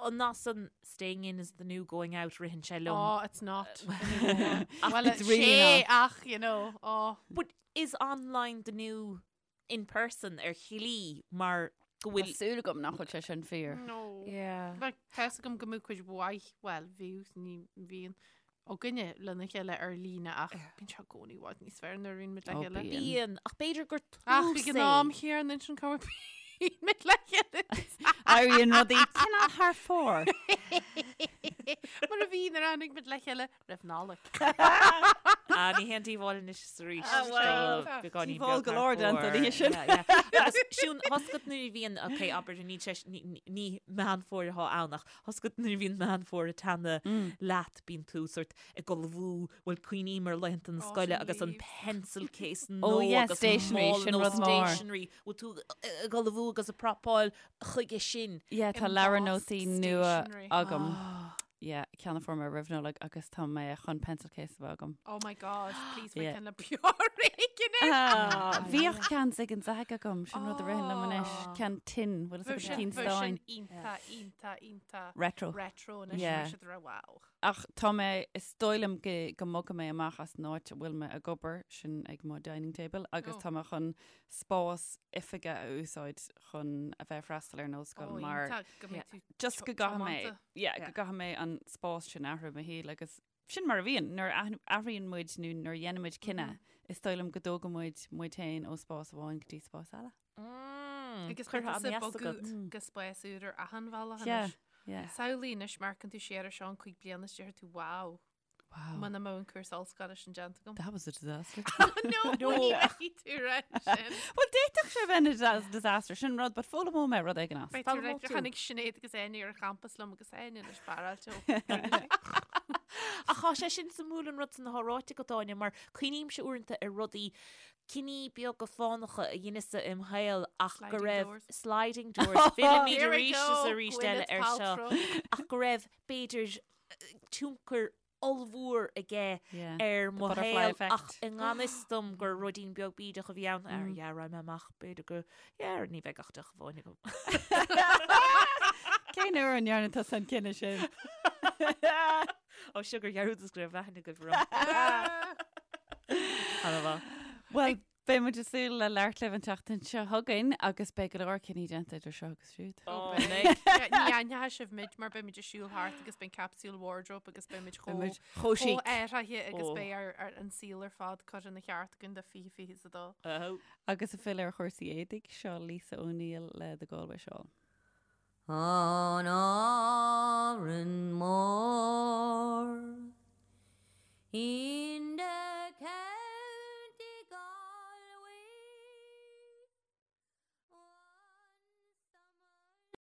C: An nath staying in is the new going out ritheann sé liom.
D: Oh, it's not anymore. Well,
B: It's really
D: sé
B: not.
D: ach, you know, oh.
C: But is online the new in person ar shlí mar go
B: Tá
C: bhfuil
B: súil agam nach bhfuil sé sin fíor.
D: No.
C: Yeah.
D: Like, tá 'fhios agam go mbeadh cuid mhaith, well, bhíodh, ní bhíonn, againne lena chéile ar líne ach bíonn sé i gcónaí i bhfad níos fearr nuair a bhíonn muid le
B: Ó,
D: chéile.
B: bíonn.
C: Bíonn, ach b'fhéidir gur
D: Ach
C: tús
D: ag an
C: é.
D: am chéanna ansin cá bhíonn muid le chéile.
B: Éiríonn rudaí cineál thar fóir.
D: Mar a bhí nuair a tháinig muid le chéile roimh Nollaig.
C: Ah, ní haon díobháil anois is arís.
B: Ah, well,
C: Tá beagáinín
B: díobháil
C: beag
B: go
C: thar
B: leor déanta
C: fóir.
B: an oíche sin.
C: Yeah, yeah. Agus Siún, tá 'fhios agat nuair a bhíonn, ok, abair, ní sé, ní, ní Meán Fómhair atá ann ach tá 'fhios agat nuair a bhíonn Meán Fómhair ag teannadh leat, bíonn tú sort ag ullmhú, bhuel, cuimhním ar laethanta na
D: Oh,
C: scoile
D: sin
C: agus an
D: leaves.
C: pencil case
B: Oh,
C: nó
B: yeah,
C: agus
B: stationery,
C: mála
B: sin
C: nó
B: rud mór.
C: stationery. Bhfuil tú ag ullmhú agus ag prapáil chuige sin.
B: Yeah, tá leabhar
D: Embossed
B: nótaí nua
D: stationery.
B: agam. Yeah, ceann a fuair mé roimh Nollaig agus tá mé chun pencil case a bheith agam.
D: Oh my God, please faigh
B: Yeah.
D: ceann le bior éigin air.
B: Ah, Bhíodh ceann Zig and Zag agam, sin rud a ritheann liom anois,
D: Oh.
B: ceann tin, bhfuil
D: Bheadh
B: fhios agat
D: sin
B: cinn
D: bheadh sin
B: stáin.
D: iontach, iontach, iontach
B: Retro.
D: retro anois
B: Yeah.
D: bheadh siad ra wow.
B: Ach tá mé, is dóigh liom go go mbogfaidh mé amach as an áit a bhfuil mé ag obair, sin ag mo dining table, agus
D: Oh.
B: tá mé chun spás oifige a úsáid chun a bheith ag freastal ar an ollscoil
D: Oh,
B: mar
D: iontach go mbeidh tú
B: just go gcaithfidh mé,
D: tiomanta.
B: yeah,
C: Yeah.
B: go gcaithfidh mé an spás sin a athrú i mo shaol agus sin mar a bhíonn nuair a athraíonn muid nó nuair a dhéanann muid cinneadh, is dóigh liom go dtógann muid muid féin ó spás amháin go dtí spás eile.
D: Agus
C: Curtha
D: beidh tusa
C: an
D: ag
C: dheas
D: bogadh
C: agat.
D: go spás úr ar achan bhealach
B: Yeah,
D: anois.
B: yeah.
D: Samhlaigh anois má amharcann tú siar ar seo in 5 bliana is déarfaidh tú wow.
B: Wow.
D: Muna mbeadh an cúrsa ollscoile sin déanta agam.
B: That was a disaster.
D: No, ní bheidh tú rá sin.
B: Well, d'fhéadfadh sé bheith ina disaster sin rud, but foghlaimeoidh mé rud éigin as.
D: Beidh tú
C: Foghlaimeoidh
D: like,
C: tú.
D: tháinig Sinéad agus Áine ar an champas liom agus Áine anois spáráilte ó.
C: Ach tá sé sin suimiúil an rud san atá ráite agat Áine mar cuimhnímse uaireanta ar rudaí cinní beaga fánacha a dheineas-sa im shaol ach go
D: Sliding
C: raibh
D: doors.
C: sliding doors fillimid
D: Here we
C: arís is
D: go,
C: arís eile
D: Gwyneth
C: ar seo
D: Paltrow.
C: ach go raibh b'fhéidir tionchar ollmhór aige
B: Yeah.
C: ar mo
B: butterfly
C: shaol
B: effect.
C: ach i ngan fhios dom gur ruidín beag bídeach a bhí ann ar yeah, raghaidh mé amach b'fhéidir go yeah, ní bheidh ach deoch amháin agam.
B: Cén uair a ndearna tusa an cinneadh sin?
C: Ó sugar dhearúdas go raibh aithne agaibh orm. Ana-mhaith.
B: Well, beidh muid ag súil le labhairt libh an tseachtain seo chugainn agus beidh go leor cinní déanta idir seo agus siúd.
D: Ó, beidh. Ní aithneoidh sibh muid mar beidh muid ag siúl thart agus beidh capsule wardrobe agus beidh muid
B: Beidh muid
D: chomh
B: chomh chic.
D: chomh athraithe agus
C: Ó.
D: beidh ar, ar an saol ar fad curtha ina cheart againn do 2022.
C: Oh.
B: Agus ag filleadh ar chúrsaí éadaigh, seo Lisa O'Neill le The Galway Shawl.
E: Oh no.